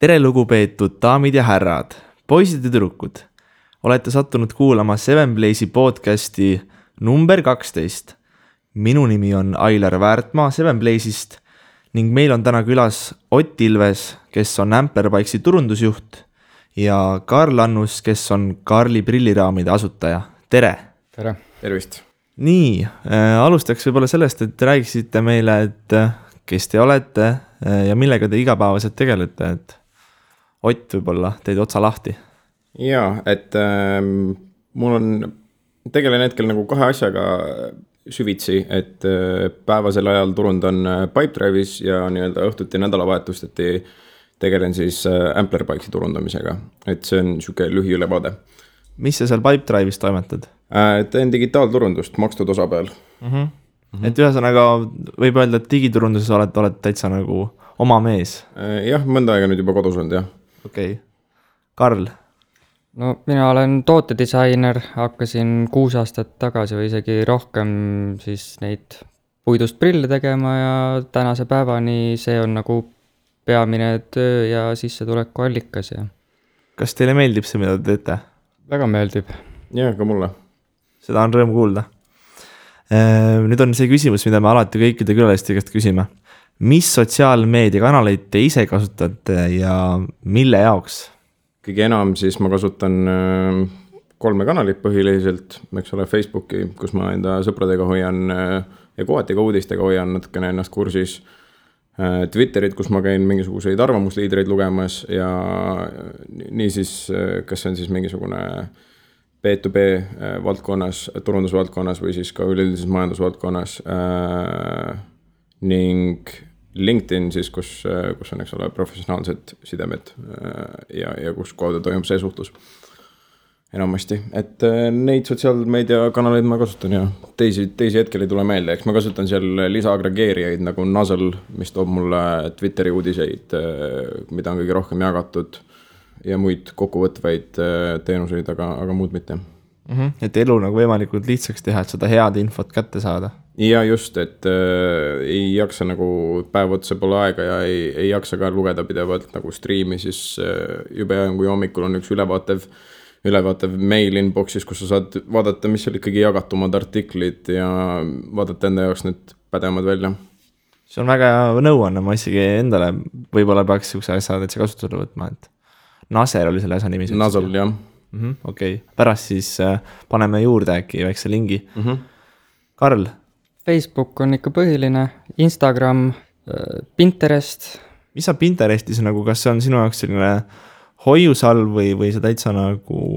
Tere lugupeetud daamid ja härrad, poisid ja tüdrukud. Olete sattunud kuulama Seven Blaze'i podcasti number 12. Minu nimi on Ailar Väärtmaa Seven Blaze'ist ning meil on täna külas Ott Ilves, kes on Amperbikesi turundusjuht ja Karl Annus, kes on Karli prilliraamide asutaja. Tere! Tere! Tervist! Nii, alustaks võib-olla sellest, et räägiksite meile, et kes te olete ja millega te igapäevaselt tegelete, et Ott võib-olla teid otsa lahti. Jaa, et mul on tegelen hetkel nagu kahe asjaga süvitsi, et päevasel ajal turundan Pipedrive'is ja nii-öelda õhtuti nädalavahetustati tegelen siis Amperbikesi turundamisega. Et see on siuke lühiülevaade. Mis sa seal Pipedrive'is toimetad? Teen digitaalturundust makstud osa peal. Et ühesõnaga võib öelda, et digiturunduses olete täitsa nagu oma mees. Jah, mõnda aega nüüd juba kodus olnud, jah. Okei. Karl? No mina olen tootedisainer, hakkasin 6 aastat tagasi või isegi rohkem siis neid puidust prille tegema ja tänase päevani see on nagu peamine töö ja sissetuleku allikas. Ja. Kas teile meeldib see, mida te teete? Väga meeldib. Jah, ka mulle. Seda on rõõm kuulda. Nüüd on see küsimus, mida me alati kõikide külaliste käest küsime. Mis sotsiaalmeediakanaleid te ise kasutate ja mille jaoks? Kõige enam siis ma kasutan 3 kanalit põhiliselt, eks ole, Facebooki, kus ma enda sõpradega hoian ja kohati ka uudistega hoian natukene ennast kursis. Twitterit, kus ma käin mingisuguseid arvamusliidreid lugemas ja nii siis, kas see on siis mingisugune B2B valdkonnas, turundusvaldkonnas või siis ka üleüldises majandusvaldkonnas ning LinkedIn siis, kus on, eks ole, professionaalsed sidemed ja kus kaudu toimub see suhtlus enamasti. Et neid sotsiaalmeediakanaleid ma kasutan ja teisi hetkel ei tule meelde. Eks ma kasutan seal lisaagregeerijaid nagu Nuzzle, mis toob mulle Twitteri uudiseid, mida on kõige rohkem jagatud ja muid kokkuvõtvaid teenuseid, aga muud mitte. Et elu nagu võimalikult lihtsaks teha, et seda head infot kätte saada. Ja just, et ei jaksa nagu päev otsa pole aega ja ei jaksa ka lugeda pidevalt nagu striimi, siis jube kui hommikul on üks ülevaatev mail inboxis, kus sa saad vaadata, mis seal ikkagi jagatumad artiklid ja vaadata enda jaoks need pädemad välja. See on väga nõuanne, ma isegi endale võib-olla peaks siukse asja kasutusele võtma, et Naser oli selle asja nimi. Nuzzle, jah. Okei. Pärast siis paneme juurde äkki väikse lingi. Karl? Facebook on ikka põhiline, Instagram, Pinterest. Mis sa Pinterestis nagu, kas see on sinu jaoks selline hoiusalv või see täitsa nagu...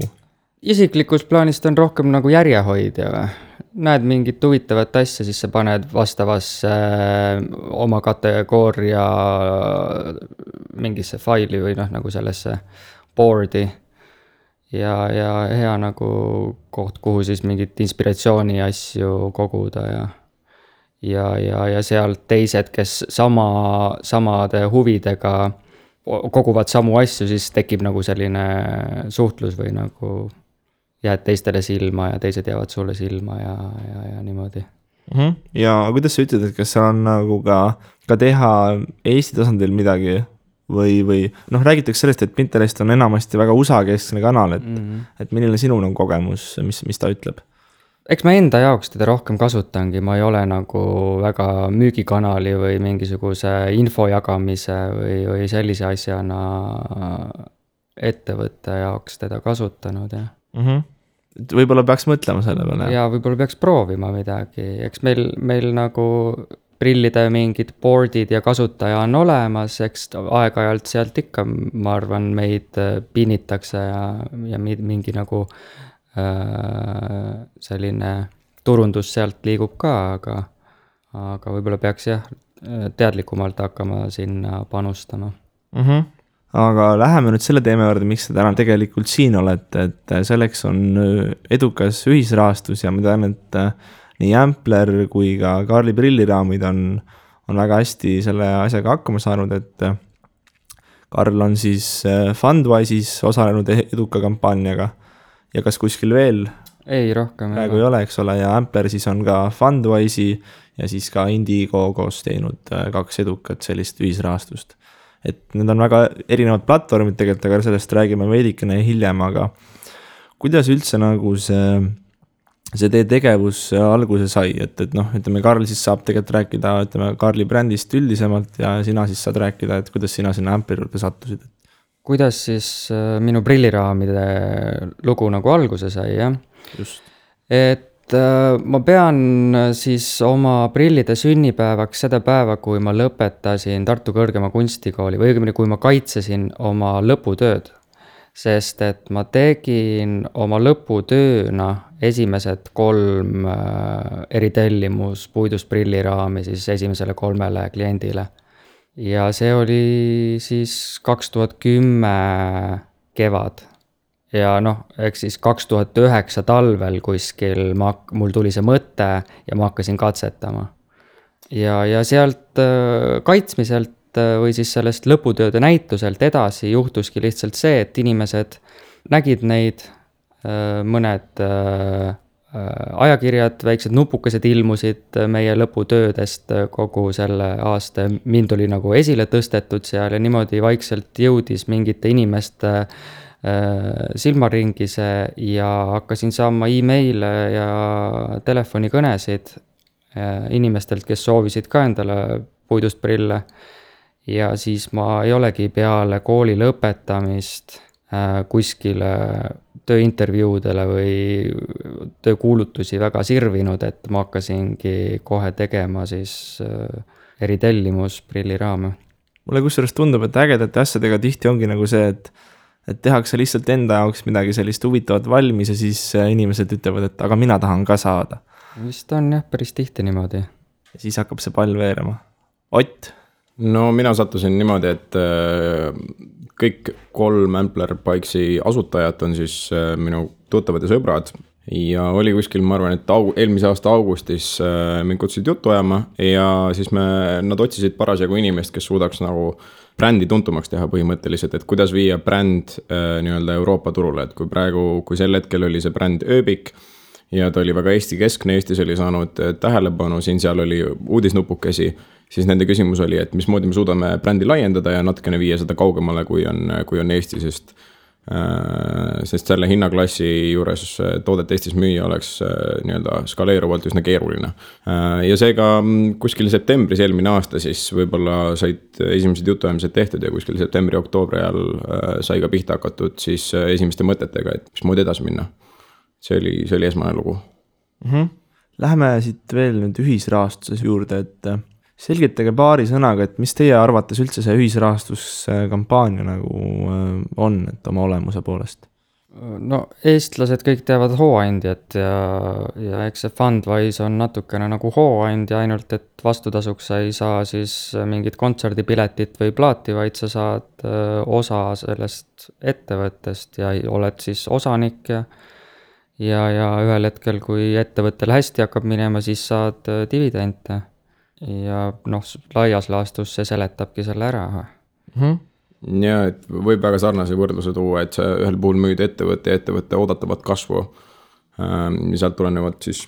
Isiklikus plaanis on rohkem nagu järjehoidja või? Näed mingit huvitavat asja, siis sa paned vastavasse oma kategooria mingisse faili või nagu sellesse boardi ja hea nagu koht, kuhu siis mingit inspiratsiooni asju koguda ja sealt teised, kes samade huvidega koguvad samu asju, siis tekib nagu selline suhtlus või nagu jääd teistele silma ja teised jäävad sulle silma ja niimoodi. Ja kuidas sa ütled, et kas seal on nagu ka teha Eesti tasandil midagi või räägitakse sellest, et Pinterest on enamasti väga USA-keskne kanal, et milline sinu on kogemus, mis ta ütleb? Eks ma enda jaoks teda rohkem kasutangi, ma ei ole nagu väga müügikanali või mingisuguse info jagamise või sellise asjana ettevõtte jaoks teda kasutanud, jah. Võib-olla peaks mõtlema selle peale. Ja võib-olla peaks proovima midagi. Eks meil nagu prillide mingid boardid ja kasutaja on olemas, eks aeg-ajalt sealt ikka, ma arvan, meid pinnitakse ja mingi nagu selline turundus sealt liigub ka, aga võib-olla peaks teadlikumalt hakkama sinna panustama. Aga läheme nüüd selle teema juurde, miks te täna tegelikult siin olete, et selleks on edukas ühisrahastus ja ma tean, et nii Ampler kui ka Karli prilliraamid on väga hästi selle asjaga hakkama saanud, et Karl on siis Fundwise'is osalenud eduka kampaaniaga ja kas kuskil veel? Ei, rohkem. Praegu ei ole, eks ole, ja Ampler siis on ka Fundwise'i ja siis ka Indigo koos teinud 2 edukat sellist ühisrahastust. et need on väga erinevad platvormid tegelikult, aga sellest räägime veidikene hiljem, aga kuidas üldse nagu see teie tegevus alguse sai, et noh, ütleme, Karl siis saab tegelikult rääkida, ütleme, Karli brändist üldisemalt ja sina siis saad rääkida, et kuidas sina sinna Ampleri juurde sattusid. Kuidas siis minu prilliraamide lugu nagu alguse sai, jah? Just. Et ma pean siis oma prillide sünnipäevaks seda päeva, kui ma lõpetasin Tartu Kõrgema Kunstikooli või õigemini, kui ma kaitsesin oma lõputööd. Sest et ma tegin oma lõputööna esimesed 3 eritellimus puidust prilliraami siis esimesele 3 kliendile. Ja see oli siis 2010 kevad. Ja noh, eks siis 2009 talvel kuskil mul tuli see mõte ja ma hakkasin katsetama. Ja sealt kaitsmiselt või siis sellest lõputööde näituselt edasi juhtuski lihtsalt see, et inimesed nägid neid, mõned ajakirjad, väiksed nupukesed ilmusid meie lõputöödest kogu selle aasta. Mind oli nagu esile tõstetud seal ja niimoodi vaikselt jõudis mingite inimeste silmaringise ja hakkasin saama e-maile ja telefonikõnesid inimestelt, kes soovisid ka endale puidust prille. Ja siis ma ei olegi peale kooli lõpetamist kuskile tööintervjuudele või töökuulutusi väga sirvinud, et ma hakkasingi kohe tegema siis eritellimus prilliraame. Mulle kusjuures tundub, et ägedate asjadega tihti ongi nagu see, et tehakse lihtsalt enda jaoks midagi sellist huvitavat valmis ja siis inimesed ütlevad, et aga mina tahan ka saada. Vist on jah, päris tihti niimoodi. Ja siis hakkab see pall veerema. Ott? No mina sattusin niimoodi, et kõik 3 Ampler Bikesi asutajat on siis minu tuttavad ja sõbrad ja oli kuskil, ma arvan, et eelmise aasta augustis mind kutsusid juttu ajama ja siis nad otsisid parasjagu inimest, kes suudaks nagu brändi tuntumaks teha põhimõtteliselt, et kuidas viia bränd nii-öelda Euroopa turule, et kui sel hetkel oli see bränd Ööbik ja ta oli väga Eesti keskne, Eestis oli saanud tähelepanu, seal oli uudisnupukesi, siis nende küsimus oli, et mismoodi me suudame brändi laiendada ja natukene viia seda kaugemale, kui on Eesti, sest selle hinnaklassi juures toodet Eestis müüa oleks nii-öelda skaleeruvalt üsna keeruline. Ja seega kuskil septembris eelmine aasta siis võib-olla said esimesed jutuajamised tehtud ja kuskil septembri-oktoobri ajal sai ka pihta hakatud siis esimeste mõtetega, et mismoodi edasi minna. See oli esmane lugu. Läheme siit veel nüüd ühisrahastuses juurde, et selgitage paari sõnaga, et mis teie arvates üldse see ühisrahastuskampaania nagu on, et oma olemuse poolest? No eestlased kõik teavad hooandjat ja eks see Fundwise on natukene nagu hooandja, ainult et vastutasuks sa ei saa siis mingit kontserdipiletit või plaati, vaid sa saad osa sellest ettevõttest ja oled siis osanik ja ühel hetkel, kui ettevõttel hästi hakkab minema, siis saad dividende. Ja noh, laias laastus see seletabki selle ära. Ja, et võib väga sarnase võrdluse tuua, et sa ühel puhul müüd ettevõtte oodatavat kasvu, sealt tulenevad siis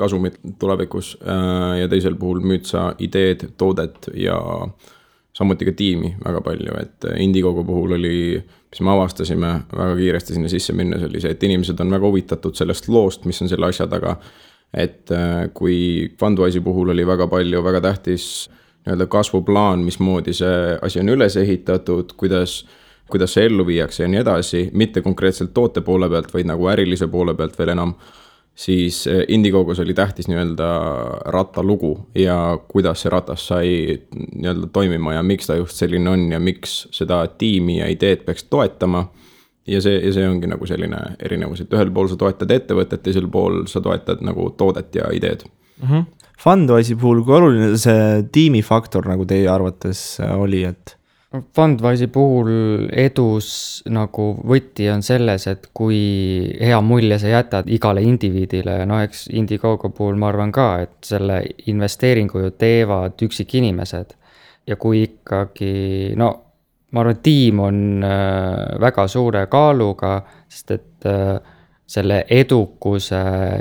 kasumid tulevikus ja teisel puhul müüd sa ideed, toodet ja samuti ka tiimi väga palju, et Indiegogo puhul oli, mis me avastasime väga kiiresti sinna sisse minnes, oli see, et inimesed on väga huvitatud sellest loost, mis on selle asja taga. Et kui Fundwise'i puhul oli väga palju, väga tähtis nii-öelda kasvuplaan, mismoodi see asi on üles ehitatud, kuidas see ellu viiakse ja nii edasi, mitte konkreetselt toote poole pealt, vaid nagu ärilise poole pealt veel enam, siis Indiegogos oli tähtis nii-öelda rattalugu ja kuidas see ratas sai nii-öelda toimima ja miks ta just selline on ja miks seda tiimi ja ideed peaks toetama. Ja see ongi nagu selline erinevus, et ühel pool sa toetad ettevõtet, teisel pool sa toetad nagu toodet ja ideed. Fundwise'i puhul, kui oluline see tiimifaktor nagu teie arvates oli, et? Fundwise'i puhul edus nagu võti on selles, et kui hea mulje sa jätad igale indiviidile, no eks Indiegogo puhul ma arvan ka, et selle investeeringu ju teevad üksik inimesed ja kui ikkagi, no ma arvan, tiim on väga suure kaaluga, sest et selle edukuse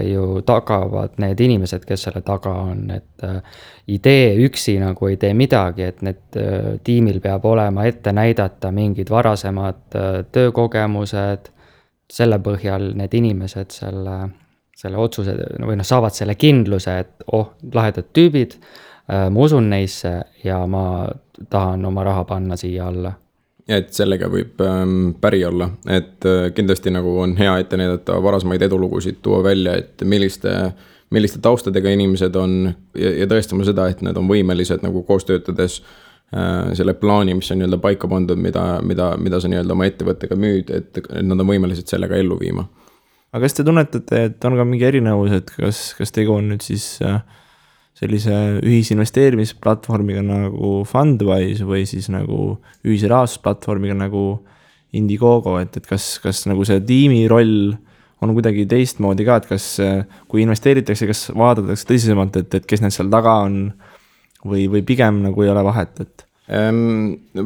ju tagavad need inimesed, kes selle taga on, et idee üksi nagu ei tee midagi, et need tiimil peab olema ette näidata mingid varasemad töökogemused, selle põhjal need inimesed selle otsuse või saavad selle kindluse, et lahedad tüübid, ma usun neisse ja ma tahan oma raha panna siia alla. Ja et sellega võib päri olla, et kindlasti nagu on hea ette näidata varasemaid edulugusid, tuua välja, et milliste taustadega inimesed on ja tõestama seda, et nad on võimelised nagu koos töötades selle plaani, mis on nii-öelda paika pandud, mida sa nii-öelda oma ettevõttega müüd, et nad on võimelised sellega ellu viima. Aga kas te tunnetate, et on ka mingi erinevus, et kas tegu on nüüd siis sellise ühisinvesteerimisplatvormiga nagu Fundwise või siis nagu ühisrahastusplatvormiga nagu Indiegogo, et kas nagu see tiimi roll on kuidagi teistmoodi ka, et kas kui investeeritakse, kas vaadatakse tõsisemalt, et kes need seal taga on või pigem nagu ei ole vahet, et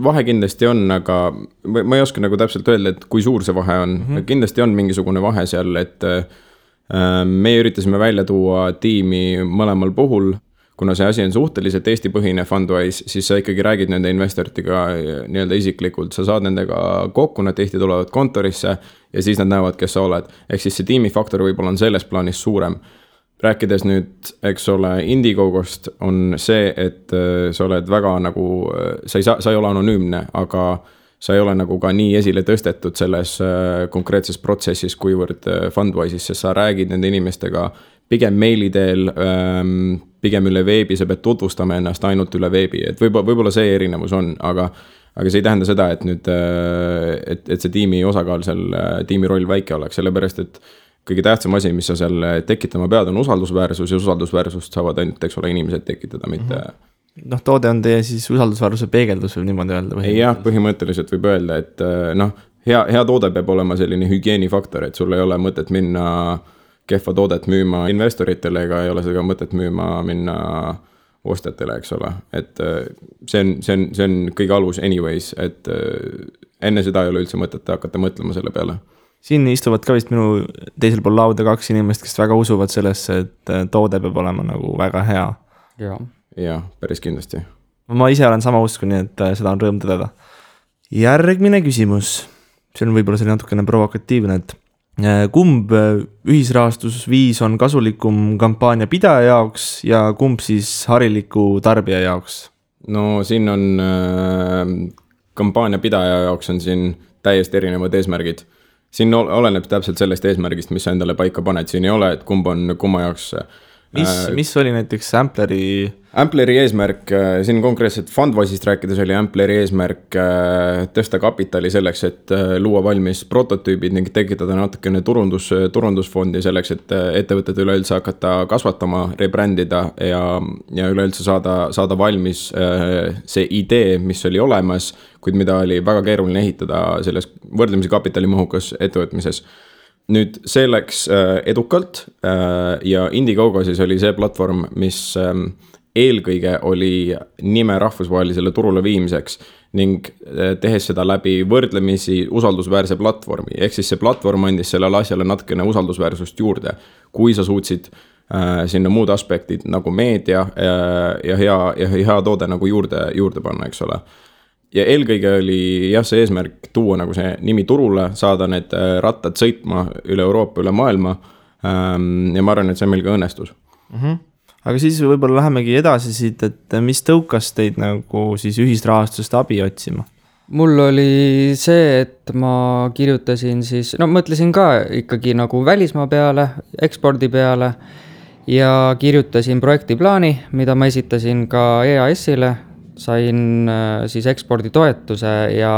vahe kindlasti on, aga ma ei oska nagu täpselt öelda, et kui suur see vahe on. Kindlasti on mingisugune vahe seal, et meie üritasime välja tuua tiimi mõlemal puhul, kuna see asi on suhteliselt Eesti-põhine Fundwise, siis sa ikkagi räägid nende investoritega nii-öelda isiklikult, sa saad nendega kokku, nad tihti tulevad kontorisse ja siis nad näevad, kes sa oled. Ehk siis see tiimifaktor võib-olla on selles plaanis suurem. Rääkides nüüd, eks ole, Indiegogost on see, et sa oled väga nagu, sa ei ole anonüümne, aga sa ei ole nagu ka nii esile tõstetud selles konkreetses protsessis, kuivõrd Fundwise'is, sest sa räägid nende inimestega pigem meili teel, pigem üle veebi, sa pead tutvustama ennast ainult üle veebi, et võib-olla see erinevus on, aga see ei tähenda seda, et nüüd, et see tiimi osakaal seal, tiimi roll väike oleks, sellepärast, et kõige tähtsam asi, mis sa seal tekitama pead, on usaldusväärsus ja usaldusväärsust saavad ainult, eks ole, inimesed tekitada, mitte toode on teie siis usaldusväärsuse peegeldus või niimoodi öelda? Jah, põhimõtteliselt võib öelda, et hea toode peab olema selline hügieenifaktor, et sul ei ole mõtet minna kehva toodet müüma investoritele ega ei ole seda mõtet minna ostjatele, eks ole. Et see on kõige alus anyways, et enne seda ei ole üldse mõtet hakata mõtlema selle peale. Siin istuvad ka vist minu teisel pool lauda 2 inimest, kes väga usuvad sellesse, et toode peab olema nagu väga hea. Jah, päris kindlasti. Ma ise olen sama usku, nii et seda on rõõm tõdeda. Järgmine küsimus. See on võib-olla selline natukene provokatiivne, et kumb ühisrahastusviis on kasulikum kampaania pidaja jaoks ja kumb siis hariliku tarbija jaoks? No siin on kampaania pidaja jaoks on siin täiesti erinevad eesmärgid. Siin oleneb täpselt sellest eesmärgist, mis sa endale paika paned. Siin ei ole, et kumma jaoks. Mis oli näiteks Ampleri eesmärk, siin konkreetselt Fundwise'ist rääkides oli Ampleri eesmärk tõsta kapitali selleks, et luua valmis prototüübid ning tekitada natukene turundusfondi selleks, et ettevõtted üleüldse hakata kasvatama, rebrändida ja üleüldse saada valmis see idee, mis oli olemas, kuid mida oli väga keeruline ehitada selles võrdlemisi kapitalimahukas ettevõtmises. Nüüd see läks edukalt ja Indiegogo siis oli see platvorm, mis eelkõige oli nime rahvusvahelisele turule viimiseks ning tehes seda läbi võrdlemisi usaldusväärse platvormi. Ehk siis see platvorm andis sellele asjale natukene usaldusväärsust juurde, kui sa suutsid sinna muud aspektid nagu meedia ja hea toode nagu juurde panna, eks ole. Ja eelkõige oli see eesmärk tuua nagu see nimi turule, saada need rattad sõitma üle Euroopa, üle maailma ja ma arvan, et see meil ka õnnestus. Aga siis võib-olla lähemegi edasi siit, et mis tõukas teid nagu siis ühisrahastust abi otsima? Mul oli see, et ma kirjutasin siis, mõtlesin ka ikkagi nagu välismaa peale, ekspordi peale ja kirjutasin projektiplaani, mida ma esitasin ka EAS-ile. Sain siis eksporditoetuse ja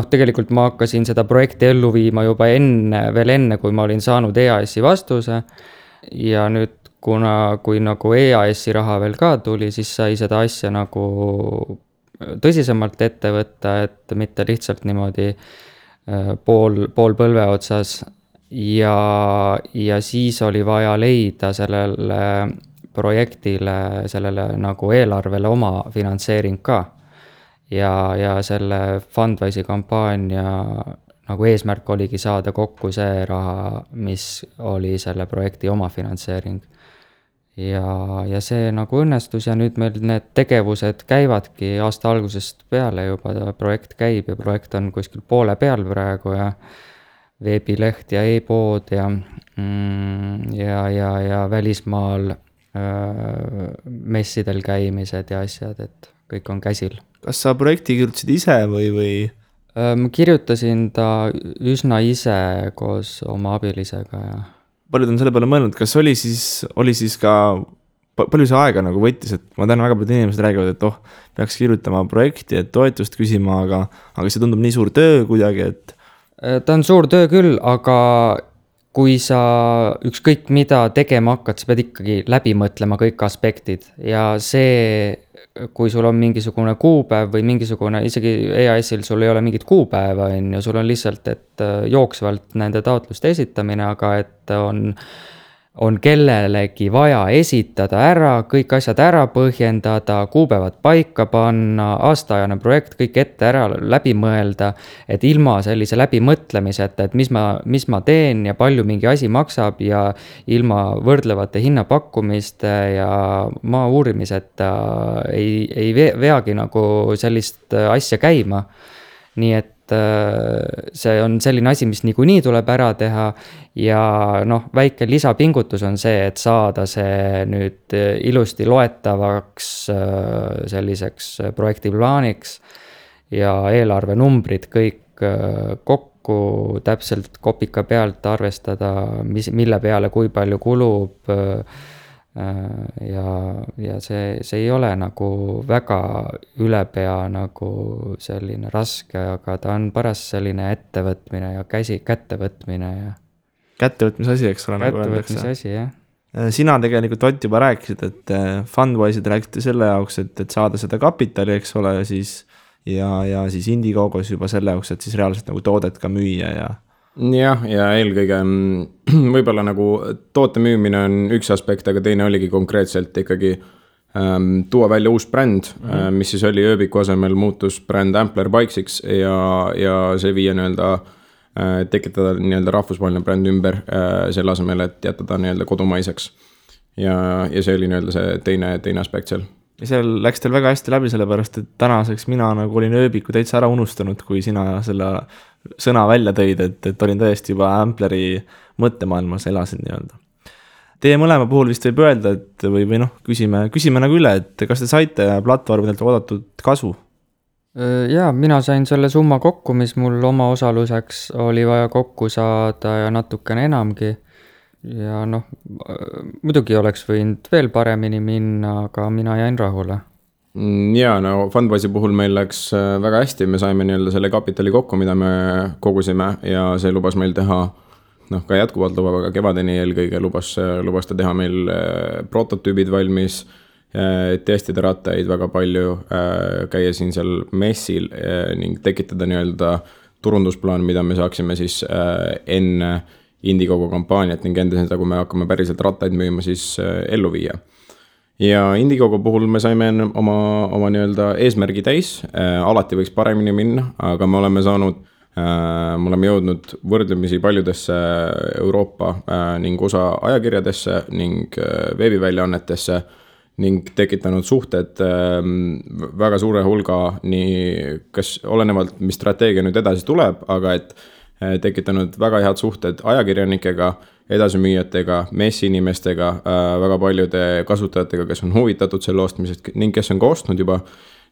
tegelikult ma hakkasin seda projekti ellu viima juba veel enne, kui ma olin saanud EAS-i vastuse ja nüüd kui nagu EAS-i raha veel ka tuli, siis sai seda asja nagu tõsisemalt ette võtta, et mitte lihtsalt niimoodi pool põlve otsas ja siis oli vaja leida sellele projektile, sellele nagu eelarvele oma finantseering ka. Ja selle Fundwise'i kampaania nagu eesmärk oligi saada kokku see raha, mis oli selle projekti omafinantseering. Ja see nagu õnnestus ja nüüd meil need tegevused käivadki aasta algusest peale juba, projekt käib ja projekt on kuskil poole peal praegu ja veebileht ja e-pood ja välismaal messidel käimised ja asjad, et kõik on käsil. Kas sa projekti kirjutasid ise või? Ma kirjutasin ta üsna ise koos oma abilisega ja paljud on selle peale mõelnud, kas oli siis ka, palju see aega nagu võttis, et ma tean, väga paljud inimesed räägivad, et peaks kirjutama projekti, et toetust küsima, aga see tundub nii suur töö kuidagi, et ta on suur töö küll, aga kui sa ükskõik mida tegema hakkad, sa pead ikkagi läbi mõtlema kõik aspektid ja see, kui sul on mingisugune kuupäev või mingisugune, isegi EAS-il sul ei ole mingit kuupäeva, sul on lihtsalt, et jooksvalt nende taotluste esitamine, aga et on kellelegi vaja esitada ära, kõik asjad ära põhjendada, kuupäevad paika panna, aastaajane projekt, kõik ette ära läbi mõelda, et ilma sellise läbimõtlemiseta, et mis ma teen ja palju mingi asi maksab ja ilma võrdlevate hinnapakkumiste ja maa uurimiseta ei veagi nagu sellist asja käima. Nii et see on selline asi, mis niikuinii tuleb ära teha ja väike lisapingutus on see, et saada see nüüd ilusti loetavaks selliseks projektiplaaniks ja eelarvenumbrid kõik kokku täpselt kopika pealt arvestada, mille peale kui palju kulub ja see ei ole nagu väga ülepea nagu selline raske, aga ta on paras selline ettevõtmine ja kättevõtmine ja kättevõtmise asi, eks ole, nagu öeldakse. Kättevõtmise asi, jah. Sina tegelikult, Ott, juba rääkisid, et Fundwise'id rääkiti selle jaoks, et saada seda kapitali, eks ole, siis ja siis Indiegogos juba selle jaoks, et siis reaalselt nagu toodet ka müüa ja ja eelkõige võib-olla nagu toote müümine on üks aspekt, aga teine oligi konkreetselt ikkagi tuua välja uus bränd, mis siis oli ööbiku asemel muutus bränd Ampler Bikesiks ja see viia tekitada rahvusvaheline bränd ümber selle asemel, et jätta ta kodumaiseks. Ja see oli see teine aspekt seal. Ja seal läks teil väga hästi läbi, sellepärast, et tänaseks mina nagu olin ööbiku täitsa ära unustanud, kui sina selle sõna välja tõid, et olin täiesti juba Ampleri mõttemaailmas elasin nii-öelda. Teie mõlema puhul vist võib öelda, et või küsime nagu üle, et kas te saite platvormidelt oodatud kasu? Jaa, mina sain selle summa kokku, mis mul oma osaluseks oli vaja kokku saada ja natukene enamgi. Ja muidugi oleks võinud veel paremini minna, aga mina jäin rahule. Ja Fundwise'i puhul meil läks väga hästi, me saime selle kapitali kokku, mida me kogusime ja see lubas meil teha, ka jätkuvalt lubab, aga kevadeni eelkõige lubas ta teha meil prototüübid valmis, testida rattaid väga palju, käia siin seal messil ning tekitada turundusplaan, mida me saaksime siis enne Indiegogo kampaaniat ning enda seda, kui me hakkame päriselt rattaid müüma, siis ellu viia. Ja Indiegogo puhul me saime oma eesmärgi täis, alati võiks paremini minna, aga me oleme jõudnud võrdlemisi paljudesse Euroopa ning osa ajakirjadesse ning veebiväljaannetesse ning tekitanud suhted väga suure hulga, nii kas olenevalt, mis strateegia nüüd edasi tuleb, aga et tekitanud väga head suhted ajakirjanikega, edasimüüjatega, messiinimestega, väga paljude kasutajatega, kes on huvitatud selle ostmisest ning kes on ka ostnud juba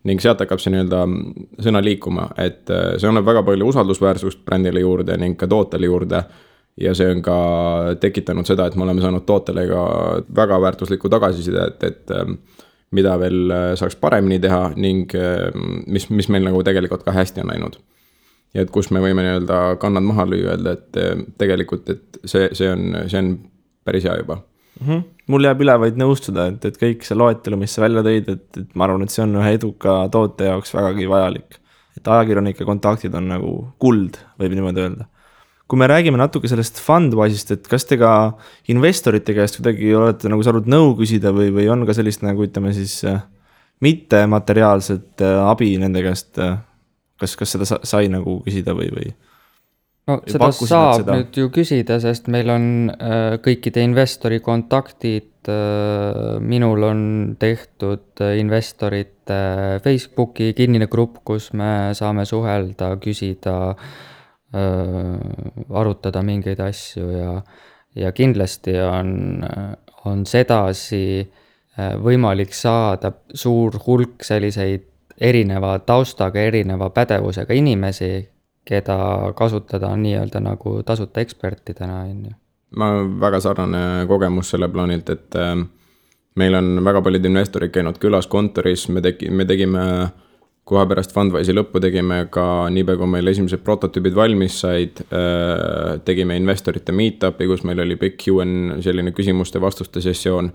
ning sealt hakkab see sõna liikuma, et see annab väga palju usaldusväärsust brändile juurde ning ka tootele juurde ja see on ka tekitanud seda, et me oleme saanud tootele ka väga väärtuslikku tagasiside, et mida veel saaks paremini teha ning mis meil nagu tegelikult ka hästi on läinud. Ja et kus me võime kannad maha lüüa, et tegelikult et see on päris hea juba. Mul jääb üle vaid nõustuda, et kõik see loetelu, mis sa välja tõid, et ma arvan, et see on ühe eduka toote jaoks vägagi vajalik. Et ajakirjanike kontaktid on nagu kuld, võib niimoodi öelda. Kui me räägime natuke sellest Fundwise'ist, et kas te ka investorite käest kuidagi olete nagu saanud nõu küsida või on ka sellist nagu ütleme siis mitte materiaalset abi nende käest, kas seda sai nagu küsida või? no seda saab nüüd ju küsida, sest meil on kõikide investori kontaktid, minul on tehtud investorite Facebooki kinnine grupp, kus me saame suhelda, küsida, arutada mingeid asju ja kindlasti on sedasi võimalik saada suur hulk selliseid erineva taustaga, erineva pädevusega inimesi, keda kasutada on nii-öelda nagu tasuta ekspertidena. Ma väga sarnane kogemus selle plaanilt, et meil on väga paljud investorid käinud külas kontoris, me tegime kohe pärast Fundwise'i lõppu tegime ka niipea, kui meil esimesed prototüübid valmis said, tegime investorite meetupi, kus meil oli pikk Q&A selline küsimuste-vastuste sessioon.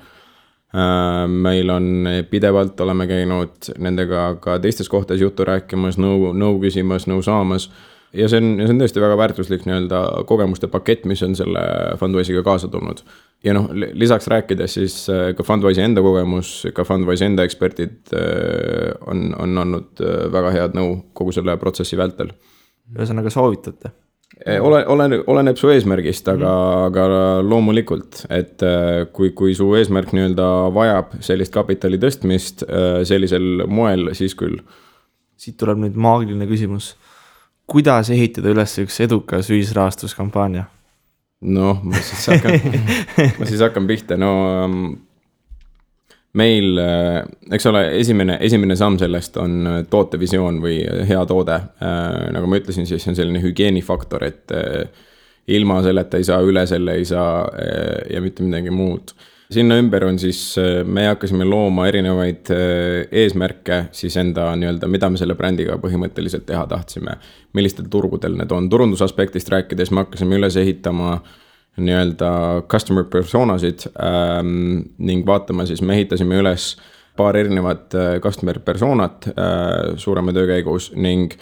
Meil on pidevalt, oleme käinud nendega ka teistes kohtades juttu rääkimas, nõu küsimas, nõu saamas. Ja see on tõesti väga väärtuslik nii-öelda kogemuste pakett, mis on selle Fundwise'iga kaasa tulnud. Ja lisaks rääkides siis ka Fundwise'i enda kogemus, ka Fundwise enda eksperdid on olnud väga head nõu kogu selle protsessi vältel. Ühesõnaga soovitate? Oleneb su eesmärgist, aga loomulikult, et kui su eesmärk nii-öelda vajab sellist kapitali tõstmist sellisel moel, siis küll. Siit tuleb nüüd maagiline küsimus. Kuidas ehitada üles üks edukas ühisrahastuskampaania? Ma siis hakkan pihta. Meil, eks ole, esimene samm sellest on tootevisioon või hea toode. Nagu ma ütlesin, siis on selline hügieenifaktor, et ilma selleta ei saa, üle selle ei saa ja mitte midagi muud. Sinna ümber on siis, me hakkasime looma erinevaid eesmärke siis enda nii-öelda, mida me selle brändiga põhimõtteliselt teha tahtsime, millistel turgudel need on. Turundusaspektist rääkides me hakkasime üles ehitama nii-öelda customer personasid ning vaatama siis, me ehitasime üles paar erinevat customer personat suurema töö käigus ning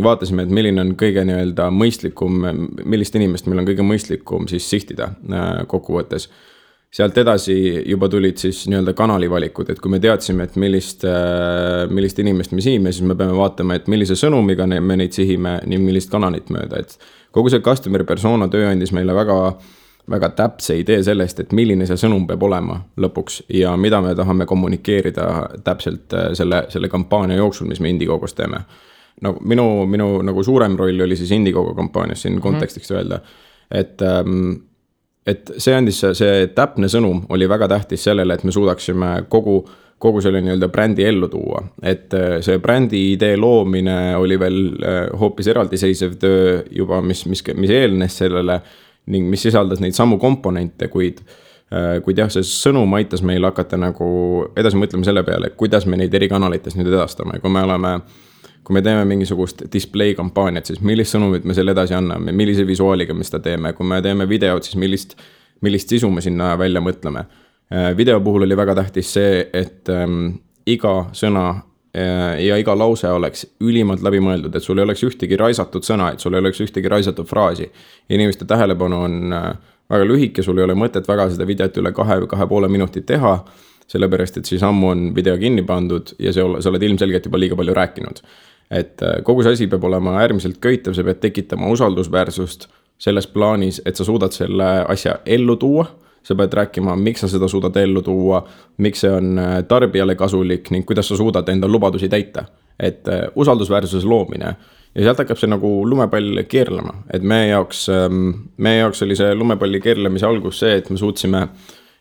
vaatasime, et milline on kõige nii-öelda mõistlikum, millist inimest meil on kõige mõistlikum siis sihtida kokkuvõttes. Sealt edasi juba tulid siis nii-öelda kanalivalikud, et kui me teadsime, et millist inimest me sihime, siis me peame vaatama, et millise sõnumiga me neid sihime, nii millist kanalit mööda. Et kogu see customer persona töö andis meile väga, väga täpse idee sellest, et milline see sõnum peab olema lõpuks ja mida me tahame kommunikeerida täpselt selle kampaania jooksul, mis me Indiegogos teeme. Minu nagu suurem roll oli siis Indiegogo kampaanias siin kontekstiks öelda, et see andis, see täpne sõnum oli väga tähtis sellele, et me suudaksime kogu selle nii-öelda brändi ellu tuua. Et see brändi idee loomine oli veel hoopis eraldiseisev töö juba, mis eelnes sellele ning mis sisaldas neid samu komponente, kuid jah, see sõnum aitas meil hakata nagu edasi mõtlema selle peale, kuidas me neid eri kanalites nüüd edastame. Kui me teeme mingisugust display kampaaniat, siis millist sõnumit me selle edasi anname, millise visuaaliga me seda teeme. Kui me teeme videot, siis millist sisu me sinna välja mõtleme. Video puhul oli väga tähtis see, et iga sõna ja iga lause oleks ülimalt läbi mõeldud, et sul ei oleks ühtegi raisatud sõna, et sul ei oleks ühtegi raisatud fraasi. Inimeste tähelepanu on väga lühike, sul ei ole mõtet väga seda videot üle 2,5 minutit teha, sellepärast, et siis ammu on video kinni pandud ja sa oled ilmselgelt juba liiga palju rääkinud. Et kogu see asi peab olema äärmiselt köitev, sa pead tekitama usaldusväärsust selles plaanis, et sa suudad selle asja ellu tuua, sa pead rääkima, miks sa seda suudad ellu tuua, miks see on tarbijale kasulik ning kuidas sa suudad enda lubadusi täita. Et usaldusväärsuses loomine ja sealt hakkab see nagu lumepall keerlema, et meie jaoks oli see lumepalli keerlemise algus see, et me suutsime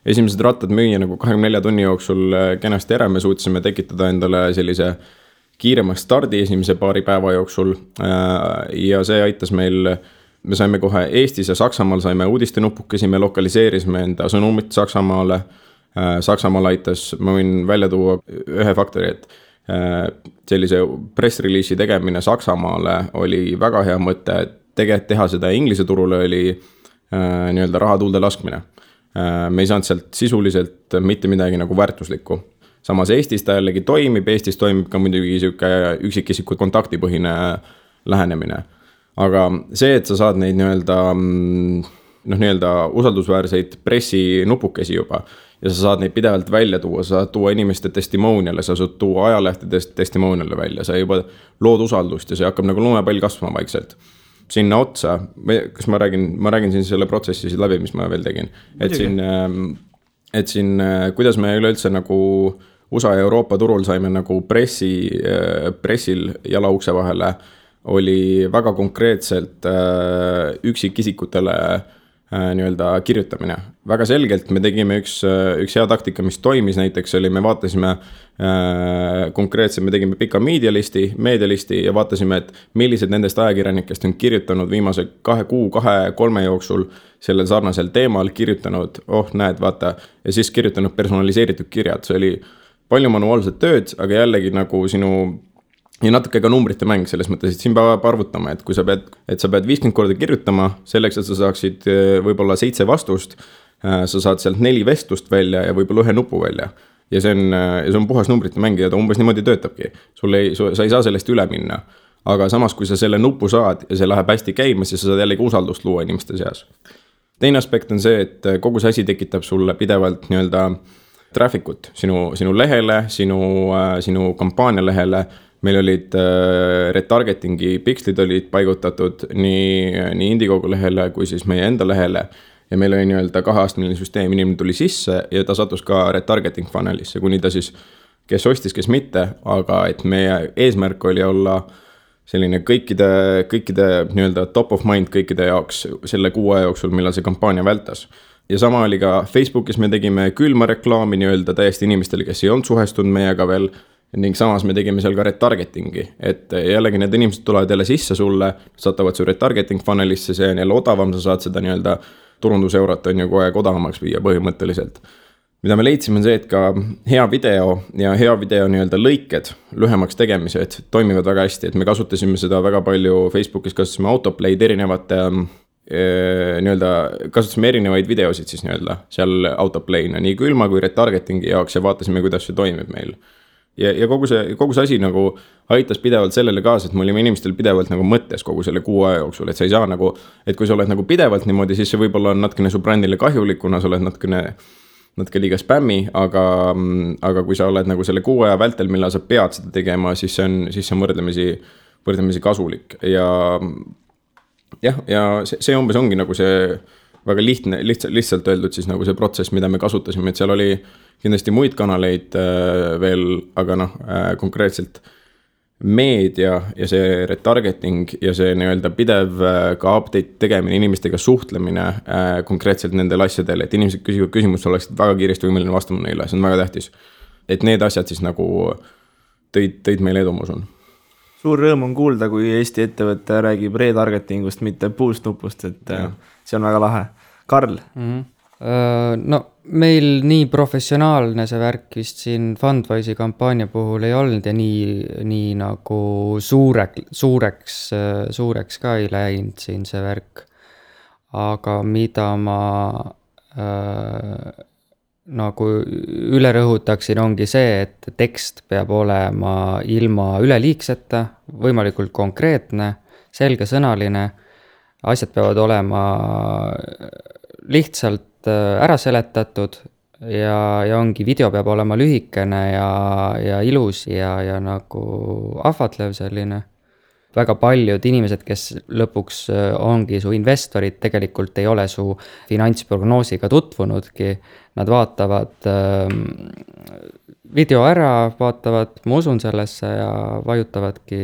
esimesed rattad müüa nagu 24 tunni jooksul kenasti ära, me suutsime tekitada endale sellise kiirema stardi esimese paari päeva jooksul ja see aitas meil, me saime kohe Eestis ja Saksamaal saime uudistenupukesi, me lokaliseerisime enda sõnumit Saksamaale. Saksamaal aitas, ma võin välja tuua ühe faktori, et sellise press-release'i tegemine Saksamaale oli väga hea mõte, tegelikult teha seda inglise turule oli nii-öelda raha tuulde laskmine. Me ei saanud sealt sisuliselt mitte midagi nagu väärtuslikku. Samas Eestis ta jällegi toimib, Eestis toimib ka muidugi üksikisiku kontaktipõhine lähenemine. Aga see, et sa saad neid nii-öelda usaldusväärseid pressinupukesi juba ja sa saad neid pidevalt välja tuua, sa saad tuua inimeste testimoniale, sa saad tuua ajalehtedest testimoniale välja, sa juba lood usaldust ja see hakkab nagu lumepall kasvama vaikselt. sinna otsa, kas ma räägin siin selle protsessi läbi, mis ma veel tegin, et siin, kuidas me üleüldse nagu USA ja Euroopa turul saime nagu pressil jala ukse vahele, oli väga konkreetselt üksikisikutele nii-öelda kirjutamine. Väga selgelt me tegime üks hea taktika, mis toimis näiteks oli, me vaatasime konkreetselt, me tegime pika meedialisti ja vaatasime, et millised nendest ajakirjanikest on kirjutanud viimase 2 kuu, 2-3 jooksul sellel sarnasel teemal, kirjutanud, näed, vaata, ja siis kirjutanud personaliseeritud kirjad. See oli palju manuaalset tööd, aga jällegi nagu ja natuke ka numbrite mäng selles mõttes, et siin peab arvutama, et kui sa pead 50 korda kirjutama selleks, et sa saaksid võib-olla 7 vastust, sa saad sealt 4 vestlust välja ja võib-olla 1 nupu välja. Ja see on puhas numbrite mäng ja ta umbes niimoodi töötabki. Sa ei saa sellest üle minna. Aga samas, kui sa selle nupu saad ja see läheb hästi käima, siis sa saad jällegi usaldust luua inimeste seas. Teine aspekt on see, et kogu see asi tekitab sulle pidevalt nii-öelda traffic'ut sinu lehele, sinu kampaania lehele. Meil olid retargetingi pikslid olid paigutatud nii Indiegogo lehele kui siis meie enda lehele ja meil oli nii-öelda 2-astmeline süsteem, inimene tuli sisse ja ta satus ka retargeting funnelisse, kuni ta siis, kes ostis, kes mitte, aga et meie eesmärk oli olla selline kõikide nii-öelda top of mind kõikide jaoks selle 6 aja jooksul, millal see kampaania vältas. Ja sama oli ka Facebookis, me tegime külma reklaami nii-öelda täiesti inimestele, kes ei olnud suhestunud meiega veel, ning samas me tegime seal ka retargetingi, et jällegi need inimesed tulevad jälle sisse sulle, satavad su retargeting funnelisse, see on jälle odavam, sa saad seda nii-öelda turunduseurot on ju kogu aeg odavamaks viia põhimõtteliselt. Mida me leidsime on see, et ka hea video nii-öelda lõiked lühemaks tegemised toimivad väga hästi, et me kasutasime seda väga palju Facebookis, kasutasime autoplay'd erinevate nii-öelda, kasutasime erinevaid videosid siis nii-öelda seal autoplay'na, nii külma kui retargetingi jaoks ja vaatasime, kuidas see toimib meil. Ja kogu see asi nagu aitas pidevalt sellele kaasa, et me olime inimestel pidevalt nagu mõttes kogu selle 6 aja jooksul, et sa ei saa nagu, et kui sa oled nagu pidevalt niimoodi, siis see võib-olla on natkene su brändile kahjulik, kuna sa oled natuke liiga spämmi, aga kui sa oled nagu selle 6 aja vältel, millal sa pead seda tegema, siis see on võrdlemisi kasulik ja see umbes ongi nagu see väga lihtsalt öeldud siis nagu see protsess, mida me kasutasime, et seal oli kindlasti muid kanaleid veel, aga konkreetselt meedia ja see retargeting ja see nii-öelda pidev ka update tegemine, inimestega suhtlemine konkreetselt nendel asjadel, et inimesed küsivad küsimust, oleksid väga kiiresti võimeline vastama neile, see on väga tähtis. Et need asjad siis nagu tõid meile edu, ma usun. Suur rõõm on kuulda, kui Eesti ettevõte räägib retargetingust, mitte boost-nupust, et see on väga lahe. Karl? No meil nii professionaalne see värk vist siin Fundwise'i kampaania puhul ei olnud ja nii nagu suureks ka ei läinud siin see värk. Aga mida ma nagu üle rõhutaksin ongi see, et tekst peab olema ilma üleliigseta, võimalikult konkreetne, selgesõnaline, asjad peavad olema lihtsalt ära seletatud ja ongi video peab olema lühikene ja ilus ja nagu ahvatlev selline. Väga paljud inimesed, kes lõpuks ongi su investorid, tegelikult ei ole su finantsprognoosiga tutvunudki. Nad vaatavad video ära, vaatavad, ma usun sellesse ja vajutavadki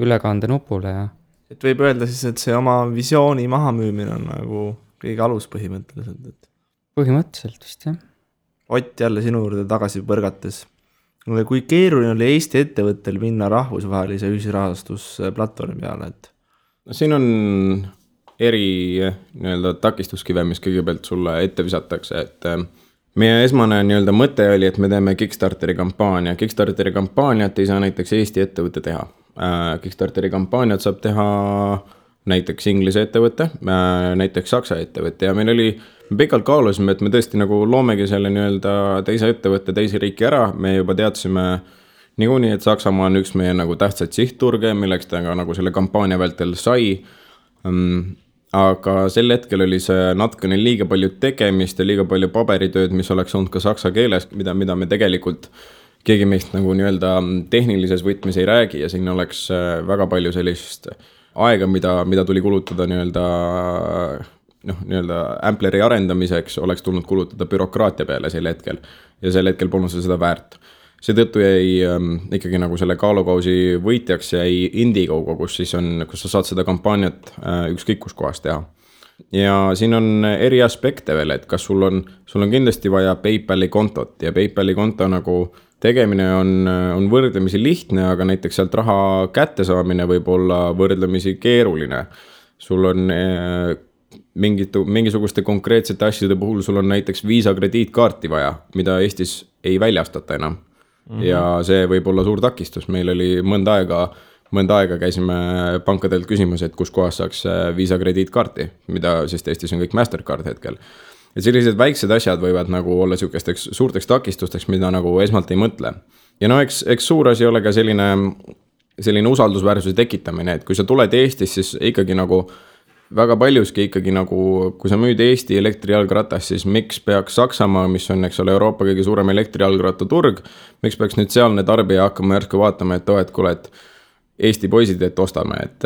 ülekande nupule. Ja. Et võib öelda siis, et see oma visiooni mahamüümine on nagu kõige alus põhimõtteliselt. Põhimõtteliselt vist, jah. Ott, jälle sinu juurde tagasi põrgates. Kui keeruline oli Eesti ettevõttel minna rahvusvahelise ühisrahastusplatvormi peale? Siin on nii-öelda takistuskive, mis kõigepealt sulle ette visatakse, et meie esmane nii-öelda mõte oli, et me teeme Kickstarteri kampaania. Kickstarteri kampaaniat ei saa näiteks Eesti ettevõtte teha. Kickstarteri kampaaniat saab teha näiteks Inglise ettevõte, näiteks Saksa ettevõte ja me pikalt kaalusime, et me tõesti nagu loomegi selle nii-öelda teise ettevõtte teise riiki ära, me juba teadsime niikuinii, et Saksamaa on üks meie nagu tähtsad sihtturge, milleks ta ka nagu selle kampaania vältel sai, aga sel hetkel oli see natukene liiga palju tegemist ja liiga palju paberitööd, mis oleks olnud ka saksa keeles, mida me tegelikult keegi meist nagu nii-öelda tehnilises võtmes ei räägi ja siin oleks väga palju sellist aega, mida tuli kulutada nii-öelda Ampleri arendamiseks, oleks tulnud kulutada bürokraatia peale sel hetkel. Ja sel hetkel polnud seda väärt. Seetõttu jäi ikkagi nagu selle kaalukausi võitjaks jäi Indiegogo, kus sa saad seda kampaaniat ükskõik kus kohas teha. Ja siin on eri aspekte veel, et kas sul on kindlasti vaja PayPali kontot ja PayPali konto nagu tegemine on võrdlemisi lihtne, aga näiteks sealt raha kätte saamine võib olla võrdlemisi keeruline. Sul on mingisuguste konkreetsete asjade puhul sul on näiteks Visa krediitkaarti vaja, mida Eestis ei väljastata enam. Ja see võib olla suur takistus. Meil oli mõnda aega käisime pankadelt küsimas, et kus kohas saaks Visa krediitkaarti, mida sest Eestis on kõik Mastercard hetkel. Ja sellised väiksed asjad võivad nagu olla sihukesteks suurteks takistusteks, mida nagu esmalt ei mõtle. Ja no eks suur asi ole ka selline usaldusväärsuse tekitamine, et kui sa tuled Eestis, siis ikkagi nagu väga paljuski ikkagi nagu, kui sa müüd Eesti elektrijalgratas, siis miks peaks Saksamaa, mis on, eks ole, Euroopa kõige suurem elektrijalgratta turg, miks peaks nüüd sealne tarbija hakkama järsku vaatama, et kuule, et Eesti poisid, et ostame, et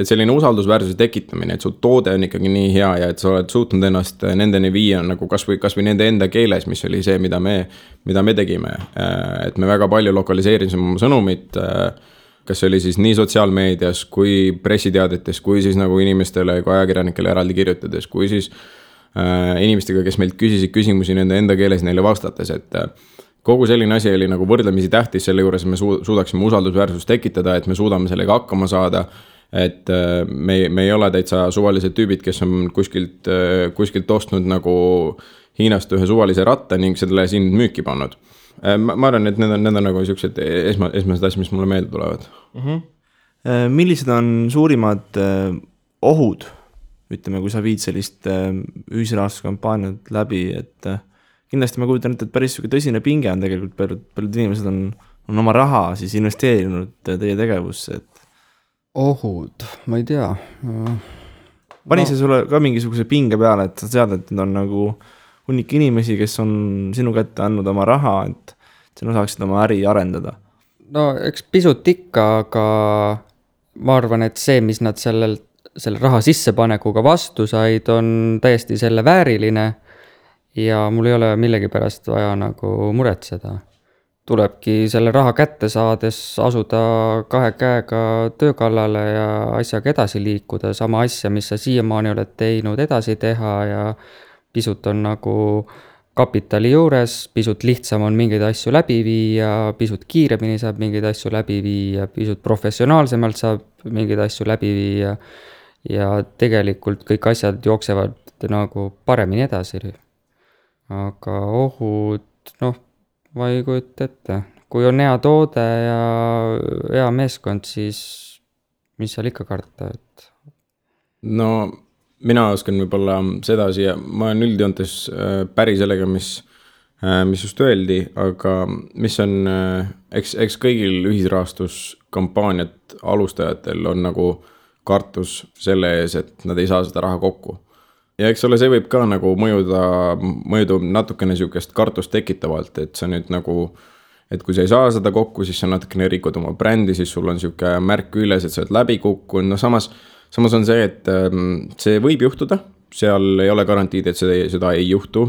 selline usaldusväärsuse tekitamine, et su toode on ikkagi nii hea ja et sa oled suutnud ennast nendeni viia nagu kas või nende enda keeles, mis oli see, mida me tegime, et me väga palju lokaliseerisime oma sõnumit, kas see oli siis nii sotsiaalmeedias kui pressiteadetes, kui siis nagu inimestele, kui ajakirjanikele eraldi kirjutades, kui siis inimestega, kes meilt küsisid küsimusi nende enda keeles neile vastates, et kogu selline asi oli nagu võrdlemisi tähtis, selle juures me suudaksime usaldusväärsust tekitada, et me suudame sellega hakkama saada, et me ei ole täitsa suvalised tüübid, kes on kuskilt ostnud nagu Hiinast ühe suvalise ratta ning selle siin müüki pannud. Ma arvan, et need on nagu sellised esmased asjad, mis mulle meelde tulevad. Millised on suurimad ohud, ütleme, kui sa viid sellist ühisrahastuskampaaniat läbi, et kindlasti ma kujutan, et päris tõsine pinge on tegelikult, paljud inimesed on oma raha siis investeerinud teie tegevusse, et ohud, ma ei tea. Pani see sulle ka mingisuguse pinge peale, et sa tead, et need on nagu hunnik inimesi, kes on sinu kätte andnud oma raha, et sina saaksid oma äri arendada? No eks pisut ikka, aga ma arvan, et see, mis nad selle raha sissepanekuga vastu said, on täiesti selle vääriline ja mul ei ole millegi pärast vaja nagu muretseda. Tulebki selle raha kätte saades asuda 2 käega töö kallale ja asjaga edasi liikuda, sama asja, mis sa siiamaani oled teinud, edasi teha ja pisut on nagu kapitali juures, pisut lihtsam on mingeid asju läbi viia, pisut kiiremini saab mingeid asju läbi viia, pisut professionaalsemalt saab mingeid asju läbi viia ja tegelikult kõik asjad jooksevad nagu paremini edasi. Aga ohud, ma ei kujuta ette. Kui on hea toode ja hea meeskond, siis mis seal ikka karta, et... No mina oskan võib-olla sedasi ja ma olen üldjoontes päri sellega, mis just öeldi, aga mis on, eks kõigil ühisrahastuskampaaniat alustajatel on nagu kartus selle ees, et nad ei saa seda raha kokku. Ja eks ole, see võib ka nagu mõjuda natukene sihukest kartust tekitavalt, et sa nüüd nagu, et kui sa ei saa seda kokku, siis sa natukene rikud oma brändi, siis sul on sihuke märk üles, et sa oled läbi kukkunud, Samas on see, et see võib juhtuda, seal ei ole garantiid, et seda ei juhtu.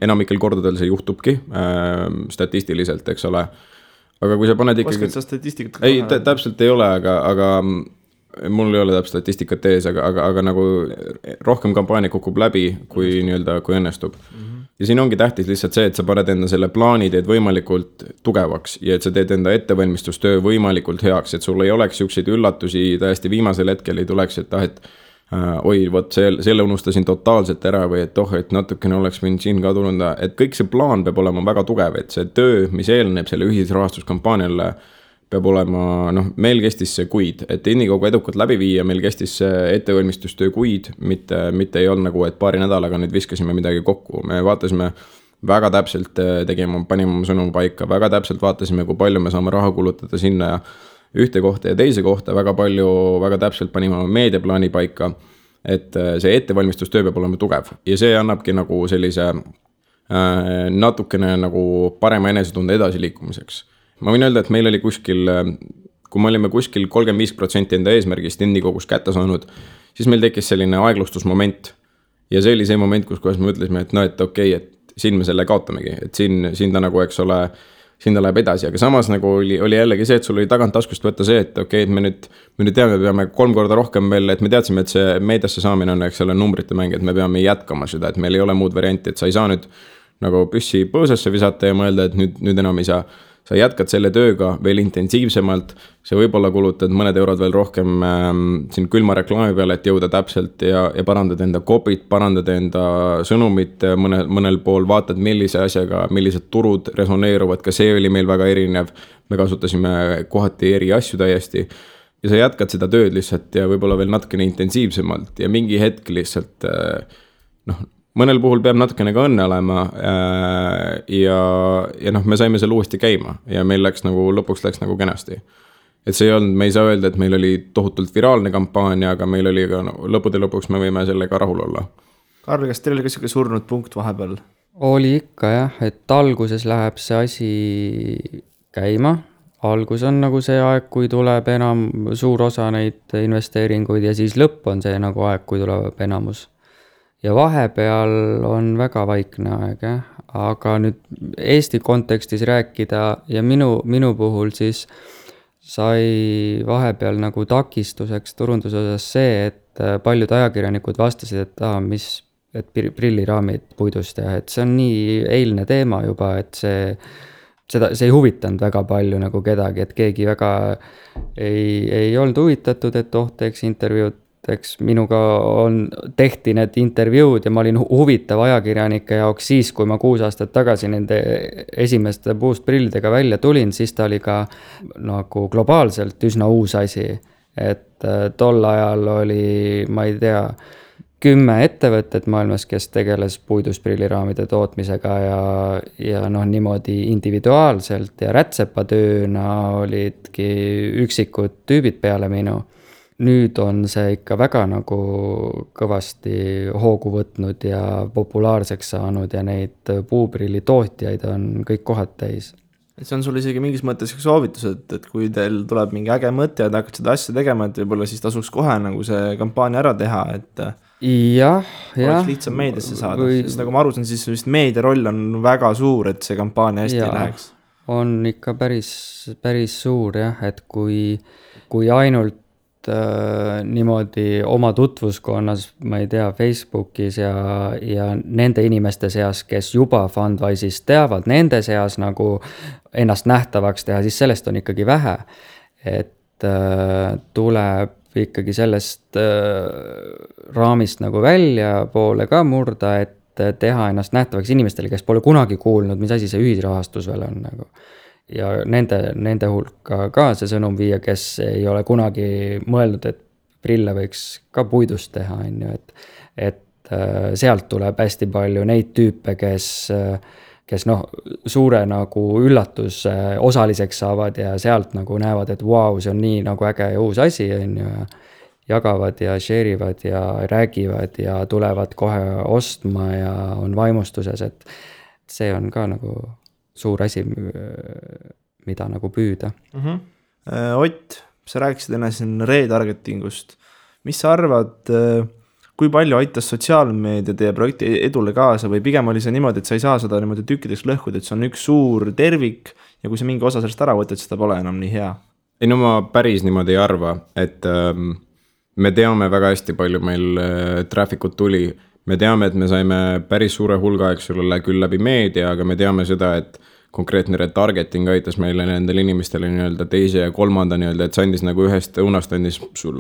Enamikel kordadel see juhtubki statistiliselt, eks ole. Aga kui sa paned ikkagi... Oskad sa statistikat? Ei, täpselt ei ole, aga mul ei ole täpselt statistikat ees, aga nagu rohkem kampaania kukub läbi, kui õnnestub. Ja siin ongi tähtis lihtsalt see, et sa paned enda selle plaani teed võimalikult tugevaks ja et sa teed enda ettevalmistustöö võimalikult heaks, et sul ei oleks siukseid üllatusi täiesti viimasel hetkel ei tuleks, et oi, vot selle unustasin totaalselt ära või et natukene oleks võinud siin ka tulnud, et kõik see plaan peab olema väga tugev, et see töö, mis eelneb selle ühisrahastuskampaaniale, peab olema, meil kestis see kuid, et Indiegogo edukalt läbi viia, meil kestis see ettevalmistustöö kuid, mitte ei olnud nagu, et paari nädalaga nüüd viskasime midagi kokku. Me vaatasime väga täpselt, panime oma sõnum paika, väga täpselt vaatasime, kui palju me saame raha kulutada sinna ja ühte kohta ja teise kohta, väga täpselt panime oma meediaplaani paika, et see ettevalmistustöö peab olema tugev ja see annabki nagu sellise natukene nagu parema enesetunde edasi liikumiseks. Ma võin öelda, et meil oli kuskil kui me olime kuskil 35% enda eesmärgist Indiegogus kätte saanud, siis meil tekkis selline aeglustusmoment. Ja see oli see moment, kus me ütlesime, et no, et okei, et siin me selle kaotamegi, et siin ta nagu, eks ole, siin ta läheb edasi, aga samas nagu oli jällegi see, et sul oli tagant taskust võtta see, et okei, et me nüüd teame, peame 3 korda rohkem veel, et me teadsime, et see meediasse saamine on, eks ole, numbrite mäng, et me peame jätkama seda, et meil ei ole muud varianti, et sa ei saa nüüd nagu püssi põõsasse visata ja mõelda, et nüüd enam ei saa. Sa jätkad selle tööga veel intensiivsemalt, sa võib-olla kulutad mõned eurod veel rohkem siin külma reklaami peale, et jõuda täpselt ja parandada enda kopit, parandada enda sõnumit mõnel pool, vaatad millise asjaga, millised turud resoneeruvad, ka see oli meil väga erinev, me kasutasime kohati eri asju täiesti ja sa jätkad seda tööd lihtsalt ja võib-olla veel natukene intensiivsemalt ja mingi hetk lihtsalt mõnel puhul peab natukene ka õnne olema ja me saime selle uuesti käima ja meil lõpuks läks nagu kenasti. Et see ei olnud, me ei saa öelda, et meil oli tohutult viraalne kampaania, aga meil oli ka lõppude lõpuks me võime sellega rahul olla. Karl, kas teil oli ka selline surnud punkt vahepeal? Oli ikka jah, et alguses läheb see asi käima. Algus on nagu see aeg, kui tuleb enam suur osa neid investeeringuid ja siis lõpp on see nagu aeg, kui tuleb enamus. Ja vahepeal on väga vaikne aeg, aga nüüd Eesti kontekstis rääkida ja minu puhul siis sai vahepeal nagu takistuseks turunduse osas see, et paljud ajakirjanikud vastasid, et prilliraamid puidust ja et see on nii eilne teema juba, et see ei huvitanud väga palju nagu kedagi, et keegi väga ei olnud huvitatud, et teeks intervjuud. Eks minuga tehti need intervjuud ja ma olin huvitav ajakirjanike jaoks siis, kui ma 6 aastat tagasi nende esimeste puustprillidega välja tulin, siis ta oli ka nagu globaalselt üsna uus asi. Et tol ajal oli, ma ei tea, 10 ettevõtted maailmas, kes tegeles puidusprilliraamide tootmisega ja niimoodi individuaalselt ja rätsepatööna olidki üksikud tüübid peale minu. Nüüd on see ikka väga nagu kõvasti hoogu võtnud ja populaarseks saanud ja neid puuprilli tootjaid on kõik kohad täis. See on sul isegi mingis mõttes soovitus, et kui teil tuleb mingi äge mõte ja te hakkad seda asja tegema, et võib-olla siis tasuks kohe nagu see kampaania ära teha, et oleks lihtsam meediasse saada. Sest nagu ma aru saan, siis vist meedia roll on väga suur, et see kampaania hästi läheks. On ikka päris suur jah, et kui ainult niimoodi oma tutvuskonnas, ma ei tea, Facebookis ja nende inimeste seas, kes juba Fundwise'is teavad, nende seas nagu ennast nähtavaks teha, siis sellest on ikkagi vähe. Et tuleb ikkagi sellest raamist nagu välja poole ka murda, et teha ennast nähtavaks inimestele, kes pole kunagi kuulnud, mis asi see ühisrahastus veel on nagu. Ja nende hulka ka see sõnum viia, kes ei ole kunagi mõelnud, et prille võiks ka puidust teha, et sealt tuleb hästi palju neid tüüpe, kes suure nagu üllatus osaliseks saavad ja sealt nagu näevad, et vau, see on nii nagu äge ja uus asi, jagavad ja share'ivad ja räägivad ja tulevad kohe ostma ja on vaimustuses, et see on ka nagu suur asi, mida nagu püüda. Ott, sa rääkisid enne siin retargetingust. Mis sa arvad, kui palju aitas sotsiaalmeedia teie projekti edule kaasa või pigem oli see niimoodi, et sa ei saa seda niimoodi tükkideks lõhkuda, et see on üks suur tervik ja kui sa mingi osa sellest ära võtad, seda pole enam nii hea? Ei, no ma päris niimoodi ei arva, et me teame väga hästi palju meil traffic'ut tuli. Me teame, et me saime päris suure hulga, eks ole, küll läbi meedia, aga me teame seda, et konkreetne retargeting aitas meile nendele inimestele nii-öelda teise ja kolmanda nii-öelda, et see andis nagu ühest õunast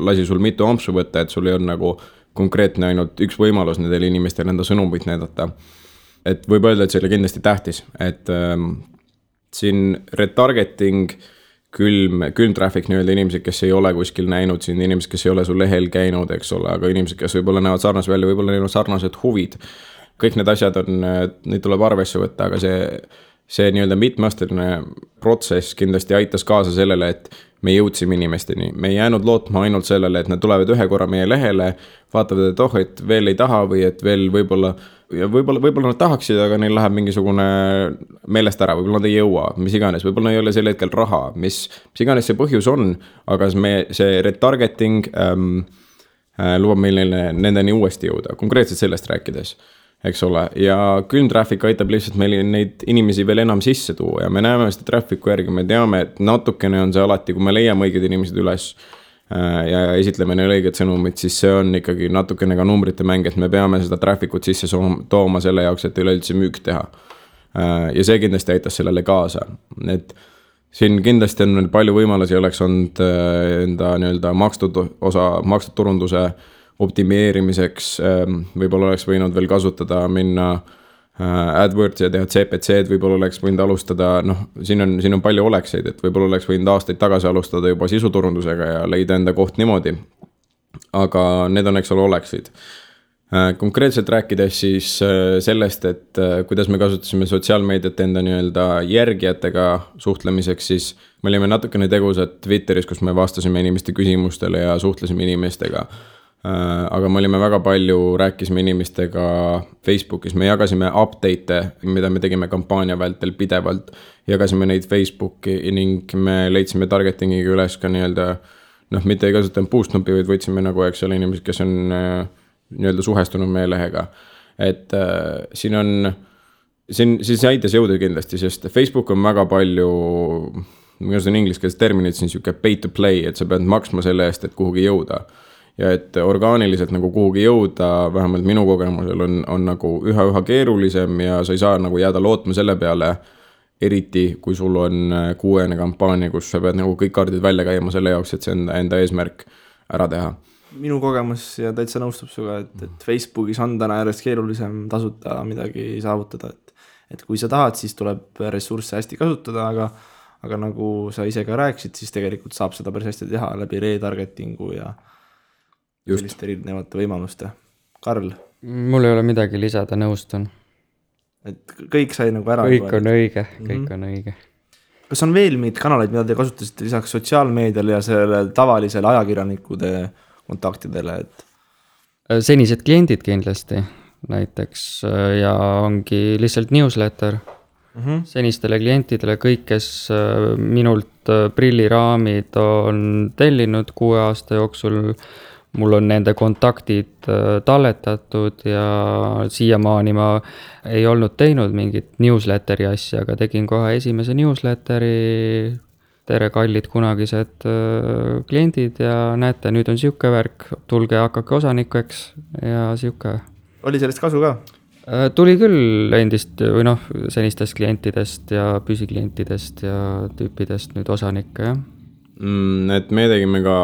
lasi sul mitu ampsu võtta, et sul ei olnud nagu konkreetne ainult üks võimalus nendele inimestele enda sõnumit näidata. Et võib öelda, et see oli kindlasti tähtis, et siin retargeting külm traffic nii-öelda inimesed, kes ei ole kuskil näinud siin, inimesed, kes ei ole sul lehel käinud, eks ole, aga inimesed, kes võib-olla näevad sarnased välja, võib-olla neil on sarnased huvid. Kõik need asjad neid tuleb arvesse võtta, aga see nii-öelda mitmeasteline protsess kindlasti aitas kaasa sellele, et me jõudsime inimesteni. Me ei jäänud lootma ainult sellele, et nad tulevad ühe korra meie lehele, vaatavad, et et veel ei taha või et veel võib-olla ja võib-olla nad tahaksid, aga neil läheb mingisugune meelest ära, võib-olla nad ei jõua, mis iganes, võib-olla ei ole sel hetkel raha, mis iganes see põhjus on, aga see retargeting lubab meil nendeni uuesti jõuda, konkreetselt sellest rääkides, eks ole, ja külm traffic aitab lihtsalt meil neid inimesi veel enam sisse tuua ja me näeme seda traffic'u järgi, me teame, et natukene on see alati, kui me leiame õiged inimesed üles ja esitleme neile õiged sõnumid, siis see on ikkagi natukene ka numbrite mäng, et me peame seda traffic ut sisse tooma selle jaoks, et üleüldse müük teha. Ja see kindlasti aitas sellele kaasa, et siin kindlasti on palju võimalusi, oleks olnud enda nii-öelda makstud turunduse optimeerimiseks, võib-olla oleks võinud veel kasutada minna AdWords ja teha CPC-d, võib-olla oleks võinud alustada, siin on palju olekseid, et võib-olla oleks võinud aastaid tagasi alustada juba sisuturundusega ja leida enda koht niimoodi, aga need on, eks ole, oleksid. Konkreetselt rääkides siis sellest, et kuidas me kasutasime sotsiaalmeediat enda nii-öelda järgijatega suhtlemiseks, siis me olime natukene tegusad Twitteris, kus me vastasime inimeste küsimustele ja suhtlesime inimestega. Aga me olime väga palju, rääkisime inimestega Facebookis, me jagasime update'e, mida me tegime kampaania vältel pidevalt, jagasime neid Facebooki ning me leidsime targetingiga üles ka nii-öelda, mitte ei kasutanud boost-nupi, vaid võtsime nagu, eks ole, inimesed, kes on nii-öelda suhestunud meie lehega. Et siin aitas jõuda kindlasti, sest Facebook on väga palju, ma kasutan ingliskeelset terminit, siin siuke pay to play, et sa pead maksma selle eest, et kuhugi jõuda. Ja et orgaaniliselt nagu kuhugi jõuda, vähemalt minu kogemusel on nagu üha keerulisem ja sa ei saa nagu jääda lootma selle peale, eriti kui sul on kuuene kampaania, kus sa pead nagu kõik kaardid välja käima selle jaoks, et see enda eesmärk ära teha. Minu kogemus ja täitsa nõustub suga, et Facebookis on täna järjest keerulisem tasuta midagi saavutada, et kui sa tahad, siis tuleb ressursse hästi kasutada, aga nagu sa ise ka rääkisid, siis tegelikult saab seda päris hästi teha läbi retargetingu ja selliste erinevate võimaluste. Karl? Mul ei ole midagi lisada, nõustun. Et kõik sai nagu ära. Kõik on õige. Kas on veel mingid kanaleid, mida te kasutasite lisaks sotsiaalmeediale ja selle tavalisele ajakirjanikude kontaktidele? Senised kliendid kindlasti näiteks ja ongi lihtsalt newsletter. Senistele klientidele kõik, kes minult prilliraamid on tellinud 6 aasta jooksul, mul on nende kontaktid talletatud ja siiamaani ma ei olnud teinud mingit newsletteri asja, aga tegin kohe esimese newsletteri. Tere kallid kunagised kliendid ja näete, nüüd on siuke värk, tulge hakake osanikeks ja siuke. Oli sellest kasu ka? Tuli küll endist või senistest klientidest ja püsiklientidest ja tüüpidest nüüd osanikke, jah. Et me tegime ka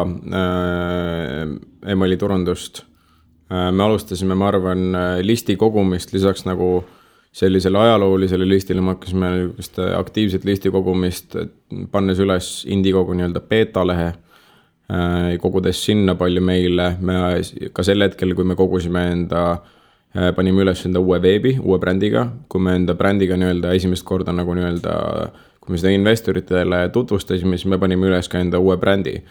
emaili turundust. Me alustasime, ma arvan, listi kogumist lisaks nagu sellisele ajaloolisele listile, me hakkasime aktiivset listi kogumist, pannes üles Indiegogo nii-öelda beta-lehe, kogudes sinna palju meile. Me ka sel hetkel, kui me kogusime panime üles enda uue veebi, uue brändiga, kui me enda brändiga nii-öelda esimest korda nagu nii-öelda kui me seda investoritele tutvustasime, siis me panime üles ka enda uue brändi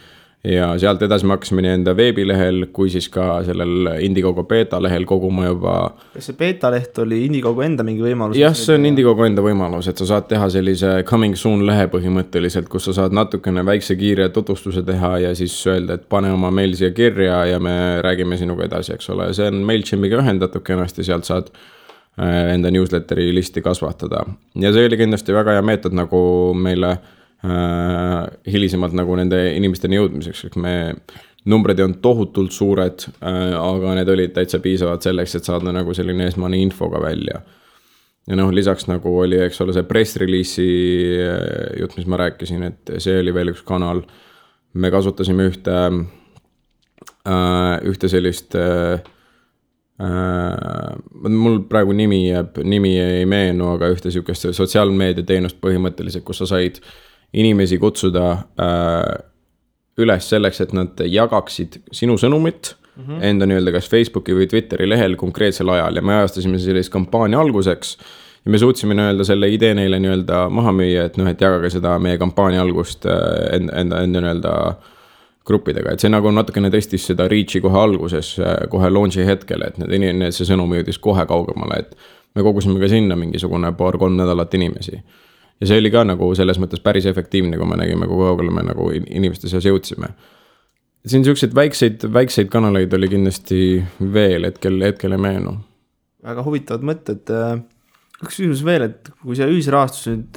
ja sealt edasi me hakkasime nii enda veebilehel kui siis ka sellel Indiegogo beta lehel koguma juba. Kas see beta leht oli Indiegogo enda mingi võimalus? Jah, see on Indiegogo enda võimalus, et sa saad teha sellise coming soon lehe põhimõtteliselt, kus sa saad natukene väikse kiire tutvustuse teha ja siis öelda, et pane oma meil siia kirja ja me räägime sinuga edasi, eks ole. See on MailChimpiga ühendatud kenasti, sealt saad enda newsletteri listi kasvatada. Ja see oli kindlasti väga hea meetod nagu meile hilisemalt nagu nende inimesteni jõudmiseks, et me numbrid on tohutult suured, aga need olid täitsa piisavad selleks, et saada nagu selline esmane infoga välja. Ja lisaks nagu oli, eks ole, see press release'i jutt, mis ma rääkisin, et see oli veel üks kanal. Me kasutasime ühte sellist mul praegu nimi ei meenu, aga ühte siukest sotsiaalmeedia teenust põhimõtteliselt, kus sa said inimesi kutsuda üles selleks, et nad jagaksid sinu sõnumit enda nii-öelda kas Facebooki või Twitteri lehel konkreetsel ajal ja me ajastasime sellist kampaania alguseks ja me suutsime nii-öelda selle idee neile nii-öelda maha müüa, et et jagage seda meie kampaania algust enda nii-öelda gruppidega, et see nagu natukene tõstis seda reach'i kohe alguses, kohe launch'i hetkel, et see sõnum jõudis kohe kaugemale, et me kogusime ka sinna mingisugune 2-3 nädalat inimesi. Ja see oli ka nagu selles mõttes päris efektiivne, kui me nägime, kui kaugele me nagu inimeste seas jõudsime. Siin selliseid väikseid kanaleid oli kindlasti veel, hetkel ei meenu. Väga huvitavad mõtted. Üks küsimus veel, et kui see ühisrahastus nüüd,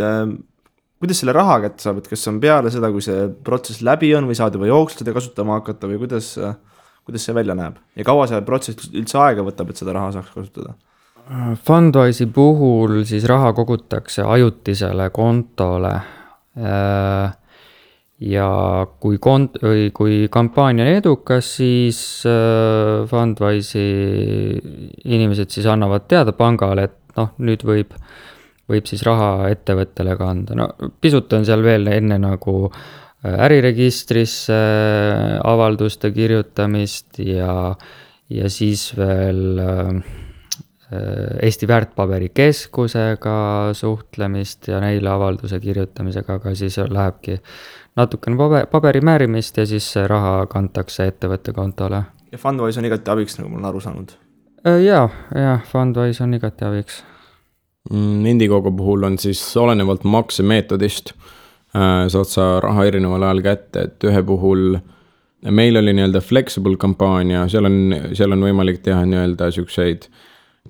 kuidas selle raha kätte saab, et kas on peale seda, kui see protsess läbi on või saad juba jooksvalt seda kasutama hakata või kuidas see välja näeb? Ja kaua see protsess üldse aega võtab, et seda raha saaks kasutada? Fundwise'i puhul siis raha kogutakse ajutisele kontole ja kui kampaania on edukas, siis Fundwise'i inimesed siis annavad teada pangale, et nüüd võib siis raha ettevõttele kanda. No pisut on seal veel enne nagu äriregistrisse avalduste kirjutamist ja siis veel Eesti väärtpaberikeskusega suhtlemist ja neile avalduse kirjutamisega, aga siis lähebki natukene paberi määrimist ja siis see raha kantakse ettevõtte kontole. Ja Fundwise on igati abiks, nagu ma olen aru saanud. Ja, Fundwise on igati abiks. Indiegogo puhul on siis olenevalt maksemeetodist saad sa raha erineval ajal kätte, et ühe puhul meil oli nii-öelda flexible kampaania, seal on võimalik teha nii-öelda siukseid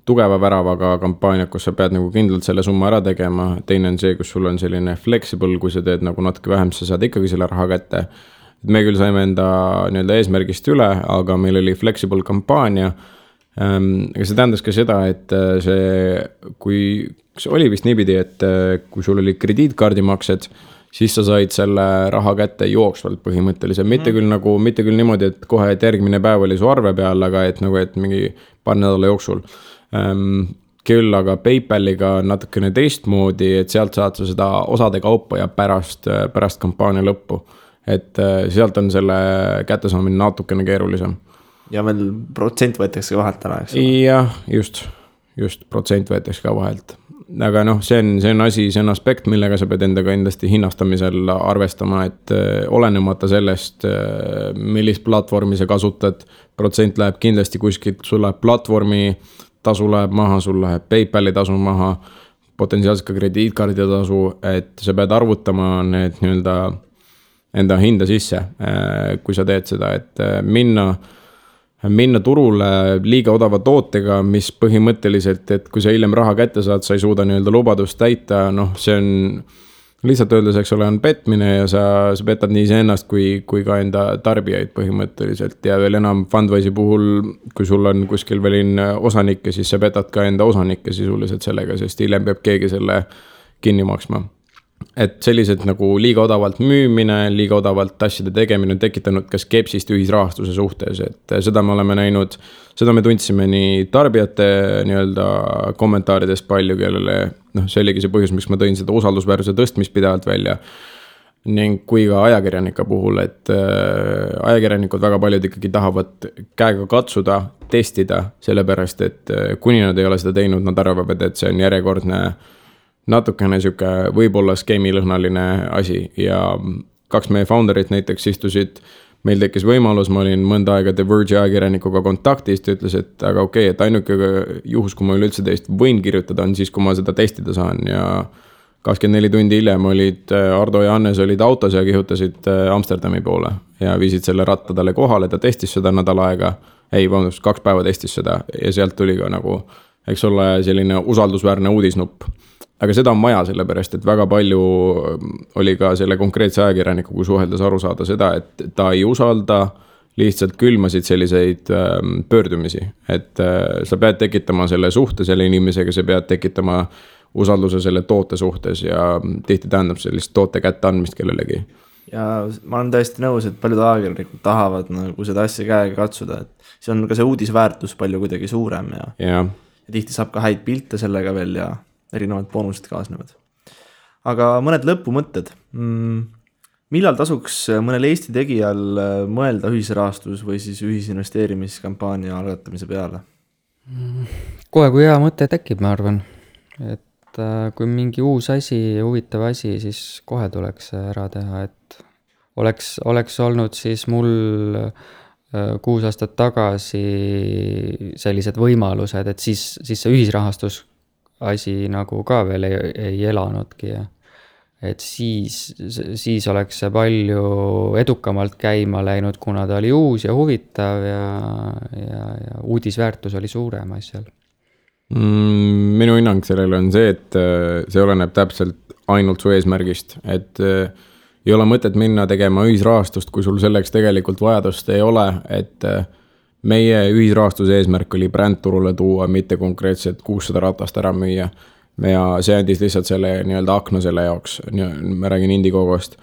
tugeva väravaga kampaaniad, kus sa pead nagu kindlalt selle summa ära tegema. Teine on see, kus sul on selline flexible, kui sa teed nagu natuke vähem, sa saad ikkagi selle raha kätte. Me küll saime enda nii-öelda eesmärgist üle, aga meil oli flexible kampaania. Aga see tähendas ka seda, et see oli vist niipidi, et kui sul oli krediitkaardimaksed, siis sa said selle raha kätte jooksvalt põhimõtteliselt. Mitte küll niimoodi, et kohe, et järgmine päev oli su arve peal, aga et nagu, et mingi paar nädala jooksul. Küll aga PayPaliga natukene teistmoodi, et sealt saad sa seda osade kaupa ja pärast kampaania lõppu. Et sealt on selle kättesaamine natukene keerulisem. Ja veel protsent võetakse ka vahelt ära, eks? Jah, just protsent võetakse ka vahelt. Aga see on aspekt, millega sa pead endaga endasti hinnastamisel arvestama, et olenemata sellest, millist platvormi sa kasutad, protsent läheb kindlasti kuskilt, sul läheb platvormi tasu läheb maha, sul läheb PayPali tasu maha, potentsiaalselt ka krediitkaardi tasu, et sa pead arvutama need nii-öelda enda hinda sisse, kui sa teed seda, et minna turule liiga odava tootega, mis põhimõtteliselt, et kui sa hiljem raha kätte saad, sa ei suuda nii-öelda lubadust täita, see on lihtsalt öeldes, eks ole, on petmine ja sa petad nii iseennast kui ka enda tarbijaid põhimõtteliselt ja veel enam Fundwise'i puhul, kui sul on kuskil veel osanikke, siis sa petad ka enda osanikke sisuliselt sellega, sest hiljem peab keegi selle kinni maksma. Et sellised nagu liiga odavalt müümine, liiga odavalt asjade tegemine on tekitanud ka skepsist ühisrahastuse suhtes, et seda me oleme näinud, seda me tundsime nii tarbijate nii-öelda kommentaarides palju, kellele see oligi see põhjus, miks ma tõin seda usaldusväärsuse tõstmist pidevalt välja ning kui ka ajakirjanike puhul, et ajakirjanikud väga paljud ikkagi tahavad käega katsuda, testida, sellepärast, et kuni nad ei ole seda teinud, nad arvavad, et see on järjekordne natukene siuke võib-olla skeemilõhnaline asi ja 2 meie founderit näiteks istusid, meil tekkis võimalus, ma olin mõnda aega The Verge ajakirjanikuga kontaktis, ta ütles, et aga okei, et ainuke juhus, kui ma üleüldse teist võin kirjutada, on siis, kui ma seda testida saan ja 24 tundi hiljem olid Ardo ja Hannes olid autos ja kihutasid Amsterdami poole ja viisid selle ratta talle kohale, ta testis seda nädal aega, 2 päeva testis seda ja sealt tuli ka nagu, eks ole, selline usaldusväärne uudisnupp. Aga seda on maja sellepärast, et väga palju oli ka selle konkreetse ajakirjanikuga suheldes aru saada seda, et ta ei usalda, lihtsalt külmasid selliseid pöördumisi, et sa pead tekitama selle suhte selle inimesega, sa pead tekitama usalduse selle toote suhtes ja tihti tähendab sellist toote kätte andmist kellelegi. Ja ma olen täiesti nõus, et paljud ajakirjanikud tahavad nagu seda asja käega katsuda, et see on ka see uudisväärtus palju kuidagi suurem ja tihti saab ka häid pilte sellega veel ja erinevad boonused kaasnevad. Aga mõned lõpumõtted. Millal tasuks mõnel Eesti tegijal mõelda ühisrahastus või siis ühisinvesteerimiskampaania algatamise peale? Kohe, kui hea mõte tekib, ma arvan. Et kui mingi uus asi, huvitav asi, siis kohe tuleks ära teha, et oleks olnud siis mul 6 aastat tagasi sellised võimalused, et siis see ühisrahastus asi nagu ka veel ei elanudki ja et siis oleks see palju edukamalt käima läinud, kuna ta oli uus ja huvitav ja uudisväärtus oli suurem asjal. Minu hinnang sellele on see, et see oleneb täpselt ainult su eesmärgist, et ei ole mõtet minna tegema ühisrahastust, kui sul selleks tegelikult vajadust ei ole, et meie ühisrahastuse eesmärk oli brändturule tuua, mitte konkreetselt 600 ratast ära müüa. Ja see andis lihtsalt selle nii-öelda akna selle jaoks, ma räägin Indiegogost.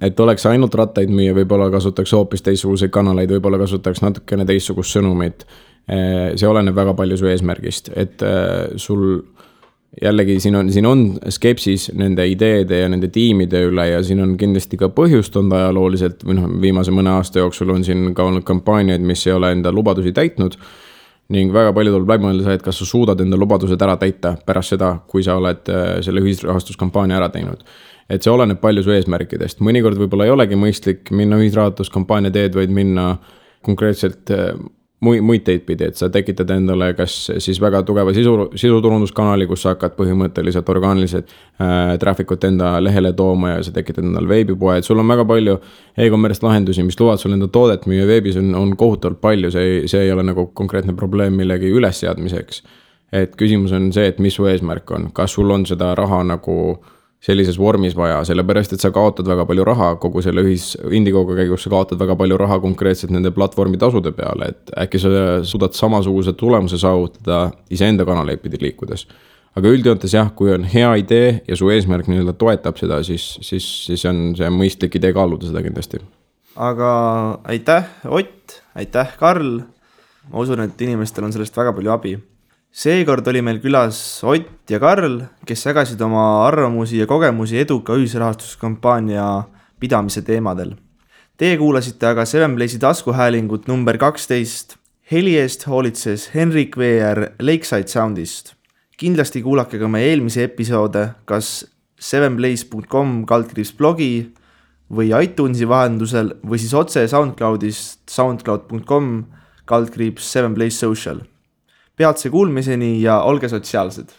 Et oleks ainult rattaid müüa, võib-olla kasutaks hoopis teistsuguseid kanaleid, võib-olla kasutaks natukene teistsugust sõnumit. See oleneb väga palju su eesmärgist, et sul jällegi siin on skepsis nende ideede ja nende tiimide üle ja siin on kindlasti ka põhjust on ajalooliselt, viimase mõne aasta jooksul on siin ka olnud kampaaniaid, mis ei ole enda lubadusi täitnud ning väga palju tuleb läbi mõelda, et kas sa suudad enda lubadused ära täita pärast seda, kui sa oled selle ühisrahastuskampaania ära teinud. Et see oleneb palju su eesmärkidest. Mõnikord võib-olla ei olegi mõistlik minna ühisrahastuskampaania teed, vaid minna konkreetselt muid teid pidi, et sa tekitad endale kas siis väga tugeva sisuturunduskanali, kus sa hakkad põhimõtteliselt orgaaniliselt trafficut enda lehele tooma ja sa tekitad endale veebipoe, et sul on väga palju e-commerce lahendusi, mis luvad sul enda toodet müüa veebis on kohutavalt palju, see ei ole nagu konkreetne probleem millegi ülesseadmiseks. Et küsimus on see, et mis su eesmärk on, kas sul on seda raha nagu sellises vormis vaja, sellepärast, et sa kaotad väga palju raha kogu selle Indiegogo käigus, sa kaotad väga palju raha konkreetselt nende platvormi tasude peale, et äkki sa suudad samasuguse tulemuse saavutada iseenda kanaleid pidi liikudes. Aga üldjoontes jah, kui on hea idee ja su eesmärk nii-öelda toetab seda, siis on see mõistlik idee kaaluda seda kindlasti. Aga aitäh, Ott, aitäh, Karl. Ma usun, et inimestel on sellest väga palju abi. Seekord oli meil külas Ott ja Karl, kes jagasid oma arvamusi ja kogemusi eduka ühisrahastuskampaania pidamise teemadel. Teie kuulasite aga 7Blaze'i taskuhäälingut number 12. Heli eest hoolitses Henrik VR Lakeside Soundist. Kindlasti kuulake ka meie eelmise episoode, kas 7blaze.com/blogi või iTunesi vahendusel või siis otse SoundCloudist soundcloud.com/7blaze social. Peatse kuulmiseni ja olge sotsiaalsed!